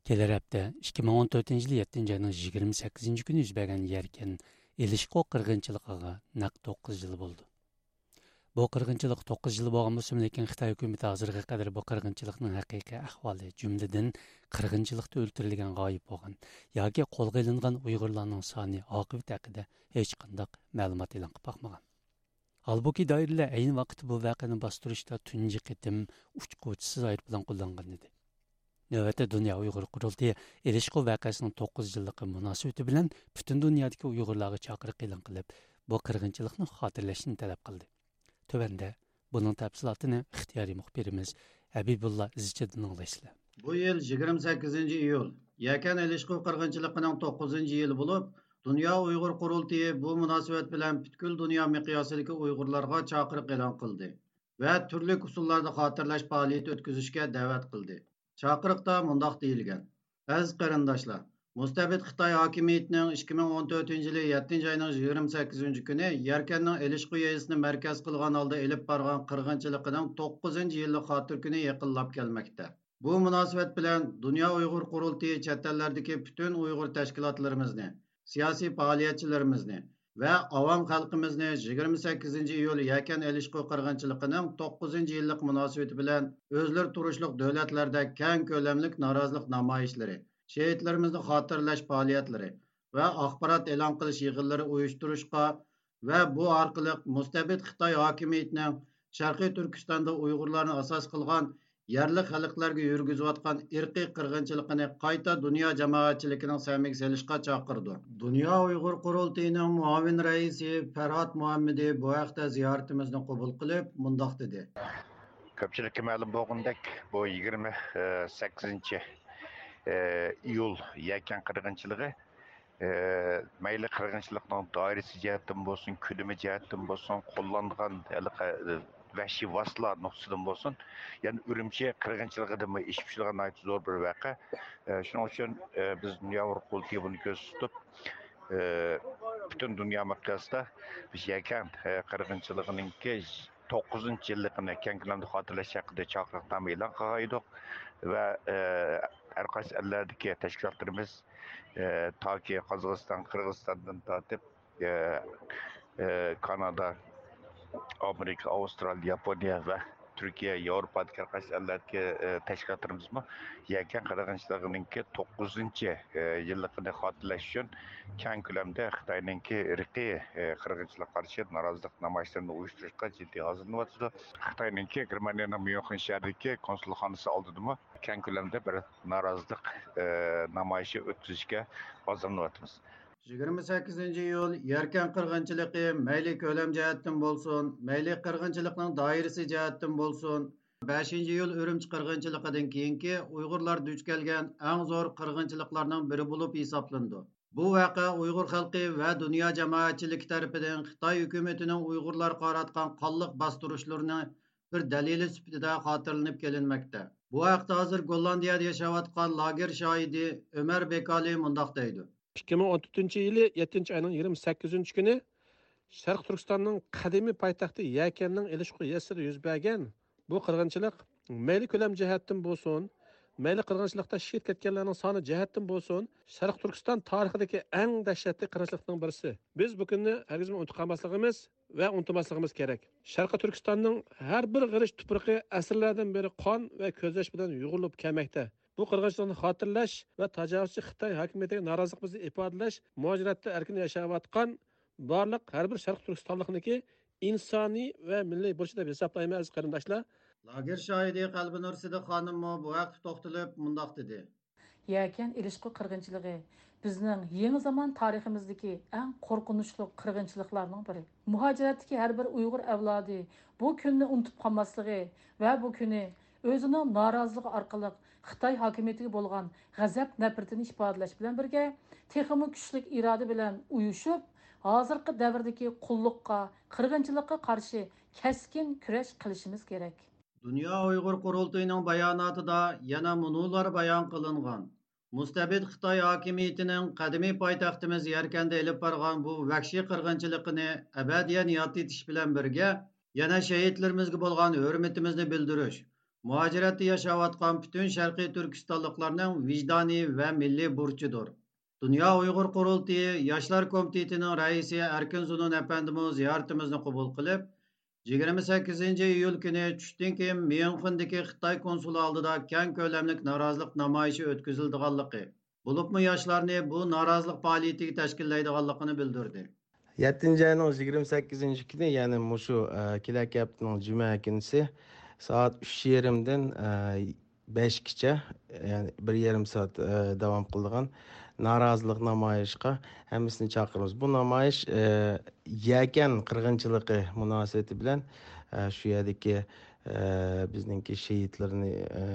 كېلەر ھەپتە، ئىككى مىڭ ئون تۆتىنچى يىل يەتتىنچى ئاينىڭ يىگىرمە سەككىزىنچى كۈنى يۈز بەرگەن يەركەن ئېلىشقۇ قىرغىنچىلىقىغا نەق توققۇز يىل بولىدۇ. بۇ قىرغىنچىلىق توققۇز يىل بولغان بولسىمۇ، لېكىن خىتاي ھۆكۈمىتى ھازىرغا قەدەر بۇ قىرغىنچىلىقنىڭ ھەقىقىي ئەھۋالى، جۈملىدىن قىرغىنچىلىقتا ئۆلتۈرۈلگەن، غايىب بولغان ياكى قولغا ئېلىنغان ئۇيغۇرلارنىڭ سانى، ئاقىۋىتى ھەققىدە ھېچقانداق مەلۇمات ئېلان قىلىپ باقمىغان. ھالبۇكى، دائىرىلەر ئەينى ۋاقىتتا بۇ ۋەقەنى باستۇرۇشتا تۇنجى قېتىم ئۇچقۇچىسىز ئايروپىلان قوللانغان ئىدى. نۆۋەتتە، دۇنيا ئۇيغۇر قۇرۇلتىيى ئېلىشقۇ ۋەقەسىنىڭ توققۇز يىللىقى مۇناسىۋىتى بىلەن پۈتۈن دۇنيادىكى ئۇيغۇرلارغا چاقىرىق ئېلان قىلىپ، بۇ قىرغىنچىلىقنى خاتىرىلەشنى تەلەپ قىلدى. تۆۋەندە بۇنىڭ تەپسىلاتىنى ئىختىيارىي مۇخبىرىمىز ھەبىبۇللا ئىزچىدىن ئاڭلايسىلەر. بۇ يىل يىگىرمە سەككىزىنچى ئىيۇل يەكەن ئېلىشقۇ قىرغىنچىلىقىنىڭ توققۇزىنچى يىلى بولۇپ، دۇنيا ئۇيغۇر قۇرۇلتىيى بۇ مۇناسىۋەت بىلەن پۈتكۈل دۇنيا مىقياسىدىكى ئۇيغۇرلارغا چاقىرىق ئېلان قىلدى ۋە تۈرلۈك ئۇسۇللاردا خاتىرىلەش پائالىيىتى ئۆتكۈزۈشكە دەۋەت قىلدى. چاقىرىقتا مۇنداق دېيىلگەن: ئەزىز قېرىنداشلار، مۇستەبىت خىتاي ھاكىمىيىتىنىڭ ئىككى مىڭ ئون تۆتىنچى يىلى يەتتىنچى ئاينىڭ يىگىرمە سەككىزىنچى كۈنى يەركەننىڭ ئېلىشقۇ يېزىسىنى مەركەز قىلغان ھالدا ئېلىپ بارغان قىرغىنچىلىقىنىڭ توققۇزىنچى يىللىق خاتىرە كۈنى يېقىنلاپ كەلمەكتە. بۇ مۇناسىۋەت بىلەن دۇنيا ئۇيغۇر قۇرۇلتىيى چەت ئەللەردىكى پۈتۈن ئۇيغۇر تەشكىلاتلىرىمىزنى، سىياسىي پائالىيەتچىلىرىمىزنى ۋە ئاۋام خەلقىمىزنى يىگىرمە سەككىزىنچى ئىيۇل يەكەن ئېلىشقۇ قىرغىنچىلىقىنىڭ توققۇزىنچى يىللىق مۇناسىۋىتى بىلەن ئۆزلىرى تۇرۇشلۇق دۆلەتلەردە كەڭ كۆلەملىك نارازىلىق نامايىشلىرى، شېھىتلىرىمىزنى خاتىرىلەش پائالىيەتلىرى ۋە ئاخبارات ئېلان قىلىش يىغىنلىرى ئۇيۇشتۇرۇشقا ۋە بۇ ئارقىلىق مۇستەبىت خىتاي ھاكىمىيىتىنىڭ شەرقىي تۈركىستاندا ئۇيغۇرلارنى ئاساس قىلغان يەرلىك خەلقلەرگە يۈرگۈزۈۋاتقان ئىرقىي قىرغىنچىلىقىنى قايتا دۇنيا جامائەتچىلىكىنىڭ سەمىگە سېلىشقا چاقىرىدۇ. دۇنيا ئۇيغۇر قۇرۇلتىيىنىڭ مۇئاۋىن رەئىسى پەرھات مۇھەممىدى بۇ ھەقتە زىيارىتىمىزنى قوبۇل قىلىپ، مۇنداق دېدى. كۆپچىلىككە مەلۇم بولغىنىدەك، بۇ يىگىرمە سەككىزىنچى ئىيۇل يەكەن قىرغىنچىلىقى ئە، مەيلى قىرغىنچىلىقنىڭ دائىرىسى جەھەتتىن بولسۇن، كۆلىمى جەھەتتىن بولسۇن، قوللانغان ھېلىقى، ئە، ۋەھشىي ۋاسىتىلەر نۇقتىسىدىن بولسۇن، يەنى ئۈرۈمچى قىرغىنچىلىقىدىنمۇ ئېشىپ چۈشىدىغان ناھايىتى زور بىر ۋەقە. ئە، شۇنىڭ ئۈچۈن، ئە، بىز دۇنيا ئۇيغۇر قۇرۇلتىيى بۇنى كۆزدە تۇتۇپ، ئە، پۈتۈن دۇنيا مىقياسىدا بىز يەكەن، ئە، قىرغىنچىلىقىنىڭكى توققۇزىنچى يىللىقىنى كەڭ كۆلەمدە خاتىرىلەش ھەققىدە چاقىرىقنامە ئېلان قىلغان ئىدۇق ۋە، ئە، ھەر قايسى ئەللەردىكى تەشكىلاتلىرىمىز، ئە، تاكى قازاقىستان، قىرغىزىستاندىن تارتىپ، ئە، ئە، كانادا، ئامېرىكا، ئاۋسترالىيە، ياپونىيە ۋە تۈركىيە، ياۋروپادىكى ھەر قايسى ئەللەردىكى، ئە، تەشكىلاتلىرىمىزمۇ يەكەن قىرغىنچىلىقىنىڭكى توققۇزىنچى، ئە، يىللىقىنى خاتىرىلەش ئۈچۈن كەڭ كۆلەمدە خىتاينىڭكى ئىرقىي، ئە، قىرغىنچىلىققا قارشى نارازىلىق نامايىشلىرىنى ئۇيۇشتۇرۇشقا جىددىي ھازىرلىنىۋاتىدۇ. خىتاينىڭكى گېرمانىيەنىڭ ميۇنخېن شەھىرىدىكى كونسۇلخانىسى ئالدىدىمۇ كەڭ كۆلەمدە بىر نارازىلىق، ئە، نامايىشى ئۆتكۈزۈشكە ھازىرلىنىۋاتىمىز. يىگىرمە سەككىزىنچى ئىيۇل يەركەن قىرغىنچىلىقى مەيلى كۆلەم جەھەتتىن بولسۇن، مەيلى قىرغىنچىلىقنىڭ دائىرىسى جەھەتتىن بولسۇن، بەشىنچى ئىيۇل ئۈرۈمچى قىرغىنچىلىقىدىن كېيىنكى ئۇيغۇرلار دۇچ كەلگەن ئەڭ زور قىرغىنچىلىقلارنىڭ بىرى بولۇپ ھېسابلىنىدۇ. بۇ ۋەقە ئۇيغۇر خەلقى ۋە دۇنيا جامائەتچىلىكى تەرىپىدىن خىتاي ھۆكۈمىتىنىڭ ئۇيغۇرلارغا قاراتقان قانلىق باستۇرۇشلىرىنىڭ بىر دەلىلى سۈپىتىدە خاتىرىلىنىپ كېلىنمەكتە. بۇ ھەقتە ھازىر گوللاندىيەدە ياشاۋاتقان لاگېر شاھىدى ئۆمەر بېكالى مۇنداق دەيدۇ. ئىككى مىڭ ئون تۆتىنچى يىلى يەتتىنچى ئاينىڭ يىگىرمە سەككىزىنچى كۈنى شەرقىي تۈركىستاننىڭ قەدىمىي پايتەختى يەكەننىڭ ئېلىشقۇ يېزىسىدا يۈز بەرگەن بۇ قىرغىنچىلىق مەيلى كۆلەم جەھەتتىن بولسۇن، مەيلى قىرغىنچىلىقتا شېھىت كەتكەنلەرنىڭ سانى جەھەتتىن بولسۇن، شەرقىي تۈركىستان تارىخىدىكى ئەڭ دەھشەتلىك قىرغىنچىلىقنىڭ بىرسى. بىز بۇ كۈننى ھەرگىزمۇ ئۇنتۇپ قالماسلىقىمىز ۋە ئۇنتۇماسلىقىمىز كېرەك. شەرقىي تۈركىستاننىڭ ھەر بىر غېرىچ تۇپرىقى ئەسىرلەردىن بېرى قان ۋە كۆز ياش بىلەن يۇغۇرۇلۇپ كەلمەكتە. بۇ قىرغىنچىلىقنى خاتىرىلەش ۋە تاجاۋۇزچى خىتاي ھاكىمىيىتىگە نارازىلىقىمىزنى ئىپادىلەش، مۇھاجىرەتتە ئەركىن ياشاۋاتقان بارلىق ھەر بىر شەرقىي تۈركىستانلىقنىڭكى ئىنسانىي ۋە مىللىي بۇرچى دەپ ھېسابلايمەن، ئەزىز قېرىنداشلار. لاگېر شاھىدى قەلبىنۇر سىدىق خانىممۇ بۇ ھەقتە توختىلىپ مۇنداق دېدى. يەكەن ئېلىشقۇ قىرغىنچىلىقى بىزنىڭ يېڭى زامان تارىخىمىزدىكى ئەڭ قورقۇنچلۇق قىرغىنچىلىقلارنىڭ بىرى. مۇھاجىرەتتىكى ھەر بىر ئۇيغۇر ئەۋلادى بۇ كۈننى ئۇنتۇپ قالماسلىقى ۋە بۇ كۈنى ئۆزىنىڭ نارازىلىقى ئارقىلىق خىتاي ھاكىمىيىتىگە بولغان غەزەپ-نەپرىتىنى ئىپادىلەش بىلەن بىرگە، تېخىمۇ كۈچلۈك ئىرادە بىلەن ئۇيۇشۇپ، ھازىرقى دەۋردىكى قۇللۇققا، قىرغىنچىلىققا قارشى كەسكىن كۈرەش قىلىشىمىز كېرەك. دۇنيا ئۇيغۇر قۇرۇلتىيىنىڭ باياناتىدا يەنە مۇنۇلار بايان قىلىنغان. مۇستەبىت خىتاي ھاكىمىيىتىنىڭ قەدىمىي پايتەختىمىز يەركەندە ئېلىپ بارغان بۇ ۋەھشىي قىرغىنچىلىقىنى ئەبەدىيەن ياد ئېتىش بىلەن بىرگە، يەنە شېھىتلىرىمىزگە بولغان ھۆرمىتىمىزنى بىلدۈرۈش، مۇھاجىرەتتە ياشاۋاتقان پۈتۈن شەرقىي تۈركىستانلىقلارنىڭ ۋىجدانىي ۋە مىللىي بۇرچىدۇر. دۇنيا ئۇيغۇر قۇرۇلتىيى ياشلار كومىتېتىنىڭ رەئىسى ئەركىن زۇنۇن ئەپەندىمۇ زىيارىتىمىزنى قوبۇل قىلىپ، يىگىرمە سەككىزىنچى ئىيۇل كۈنى چۈشتىن كېيىن ميۇنخېندىكى خىتاي كونسۇلى ئالدىدا كەڭ كۆلەملىك نارازىلىق نامايىشى ئۆتكۈزۈلىدىغانلىقى، بولۇپمۇ ياشلارنى بۇ نارازىلىق پائالىيىتىگە تەشكىللەيدىغانلىقىنى بىلدۈردى. يەتتىنچى ئاينىڭ يىگىرمە سەككىزىنچى كۈنى، يەنى مۇشۇ، ئە، كېلەركى ھەپتىنىڭ جۈمە كۈنىسى سائەت ئۈچ يېرىمدىن، ئە، بەشكىچە، يەنى بىر يېرىم سائەت، ئە، داۋام قىلىدىغان نارازىلىق نامايىشقا ھەممىسىنى چاقىرىمىز. بۇ نامايىش، ئە، يەكەن قىرغىنچىلىقى مۇناسىۋىتى بىلەن، ئە، شۇ يەردىكى، ئە، بىزنىڭكى شېھىتلىرىنى، ئە،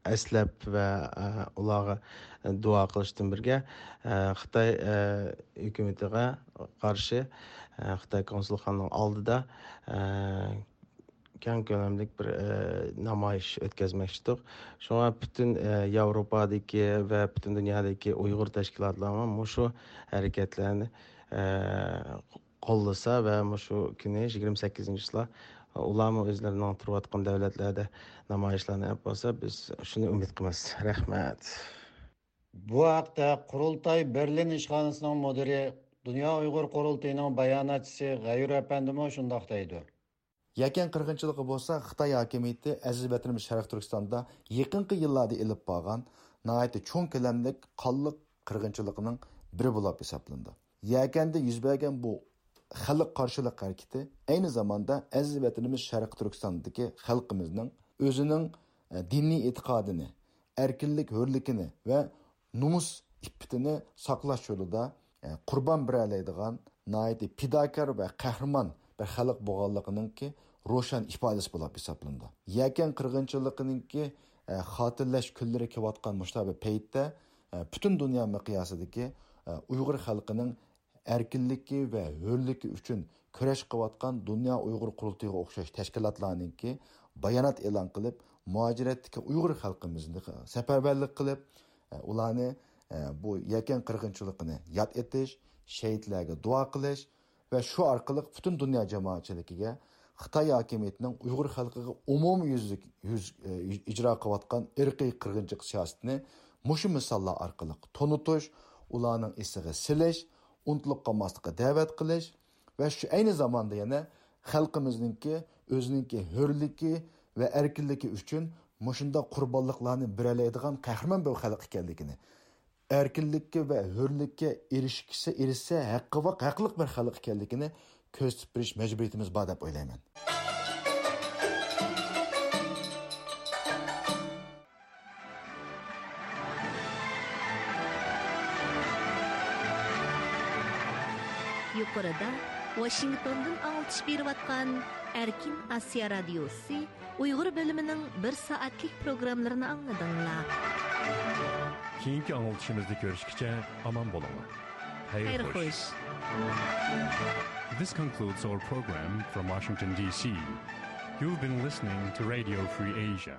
ئەسلەپ ۋە، ئە، ئۇلارغا دۇئا قىلىشتىن بىرگە، ئە، خىتاي، ئە، ھۆكۈمىتىگە قارشى، ئە، خىتاي كونسۇلخانىنىڭ ئالدىدا، ئە، كەڭ كۆلەملىك بىر، ئە، نامايىش ئۆتكۈزمەكچىدۇق. شۇڭا پۈتۈن، ئە، ياۋروپادىكى ۋە پۈتۈن دۇنيادىكى ئۇيغۇر تەشكىلاتلىرىمۇ مۇشۇ ھەرىكەتلەرنى، ئە، قوللىسا ۋە مۇشۇ كۈنى يىگىرمە سەككىزىنچى چىسلا ئۇلارمۇ ئۆزلىرىنىڭ تۇرۇۋاتقان دۆلەتلەردە نامايىشلارنى ئېلىپ بارسا، بىز شۇنى ئۈمىد قىلىمىز. رەھمەت. بۇ ھەقتە قۇرۇلتاي بېرلىن ئىشخانىسىنىڭ مۇدىرى، دۇنيا ئۇيغۇر قۇرۇلتىيىنىڭ باياناتچىسى غەيۇر ئەپەندىمۇ شۇنداق دەيدۇ. يەكەن قىرغىنچىلىقى بولسا خىتاي ھاكىمىيىتى ئەزىز ۋەتىنىمىز شەرقىي تۈركىستاندا يېقىنقى يىللاردا ئېلىپ بارغان ناھايىتى چوڭ كۆلەملىك قانلىق قىرغىنچىلىقىنىڭ بىرى بولۇپ ھېسابلىنىدۇ. يەكەندە يۈز بەرگەن بۇ خەلق قارشىلىق ھەرىكىتى ئەينى زاماندا ئەزىز ۋەتىنىمىز شەرقىي تۈركىستاندىكى خەلقىمىزنىڭ ئۆزىنىڭ، ئە، دىنىي ئېتىقادىنى، ئەركىنلىك، ھۆرلۈكىنى ۋە نومۇس ئىپپىتىنى ساقلاش يولىدا، ئە، قۇربان بېرەلەيدىغان ناھايىتى پىداكار ۋە قەھرىمان بىر خەلق بولغانلىقىنىڭكى روشەن ئىپادىسى بولۇپ ھېسابلىنىدۇ. يەكەن قىرغىنچىلىقىنىڭكى، ئە، خاتىرىلەش كۈنلىرى كېلىۋاتقان مۇشۇنداق بىر پەيتتە، ئە، پۈتۈن دۇنيا مىقياسىدىكى، ئۇيغۇر خەلقىنىڭ ئەركىنلىكى ۋە ھۆرلۈكى ئۈچۈن كۈرەش قىلىۋاتقان دۇنيا ئۇيغۇر قۇرۇلتىيىغا ئوخشاش تەشكىلاتلارنىڭكى بايانات ئېلان قىلىپ، مۇھاجىرەتتىكى ئۇيغۇر خەلقىمىزنى سەپەرۋەرلىك قىلىپ، ئۇلارنى بۇ يەكەن قىرغىنچىلىقىنى ياد ئېتىش، شېھىتلەرگە دۇئا قىلىش ۋە شۇ ئارقىلىق پۈتۈن دۇنيا جامائەتچىلىكىگە خىتاي ھاكىمىيىتىنىڭ ئۇيغۇر خەلقىگە ئومۇميۈزلۈك يۈز، ئىجرا قىلىۋاتقان ئىرقىي قىرغىنچىلىق سىياسىتىنى مۇشۇ مىساللار ئارقىلىق تونۇتۇش، ئۇلارنىڭ ئېسىگە سېلىش، ئۇنتۇلۇپ قالماسلىققا دەۋەت قىلىش ۋە شۇ ئەينى زاماندا يەنە خەلقىمىزنىڭكى ئۆزىنىڭكى ھۆرلۈكى ۋە ئەركىنلىكى ئۈچۈن مۇشۇنداق قۇربانلىقلارنى بېرەلەيدىغان قەھرىمان بىر خەلق ئىكەنلىكىنى، ئەركىنلىككە ۋە ھۆرلۈككە ئېرىشكىسى، ئېرىشسە ھەققى ۋاق-، ھەقلىق بىر خەلق ئىكەنلىكىنى كۆرسىتىپ بېرىش مەجبۇرىيىتىمىز بار دەپ ئويلايمەن. يۇقىرىدا ۋاشىنگتوندىن ئاڭلىتىش بېرىۋاتقان ئەركىن ئاسىيا رادىيوسى ئۇيغۇر بۆلۈمىنىڭ بىر سائەتلىك پروگراممىلىرىنى ئاڭلىدىڭلار. كېيىنكى ئاڭلىتىشىمىزدا كۆرۈشكىچە ئامان بولۇڭلار. خەير خوش. This concludes our program from Washington, D C. You've been listening to Radio Free Asia.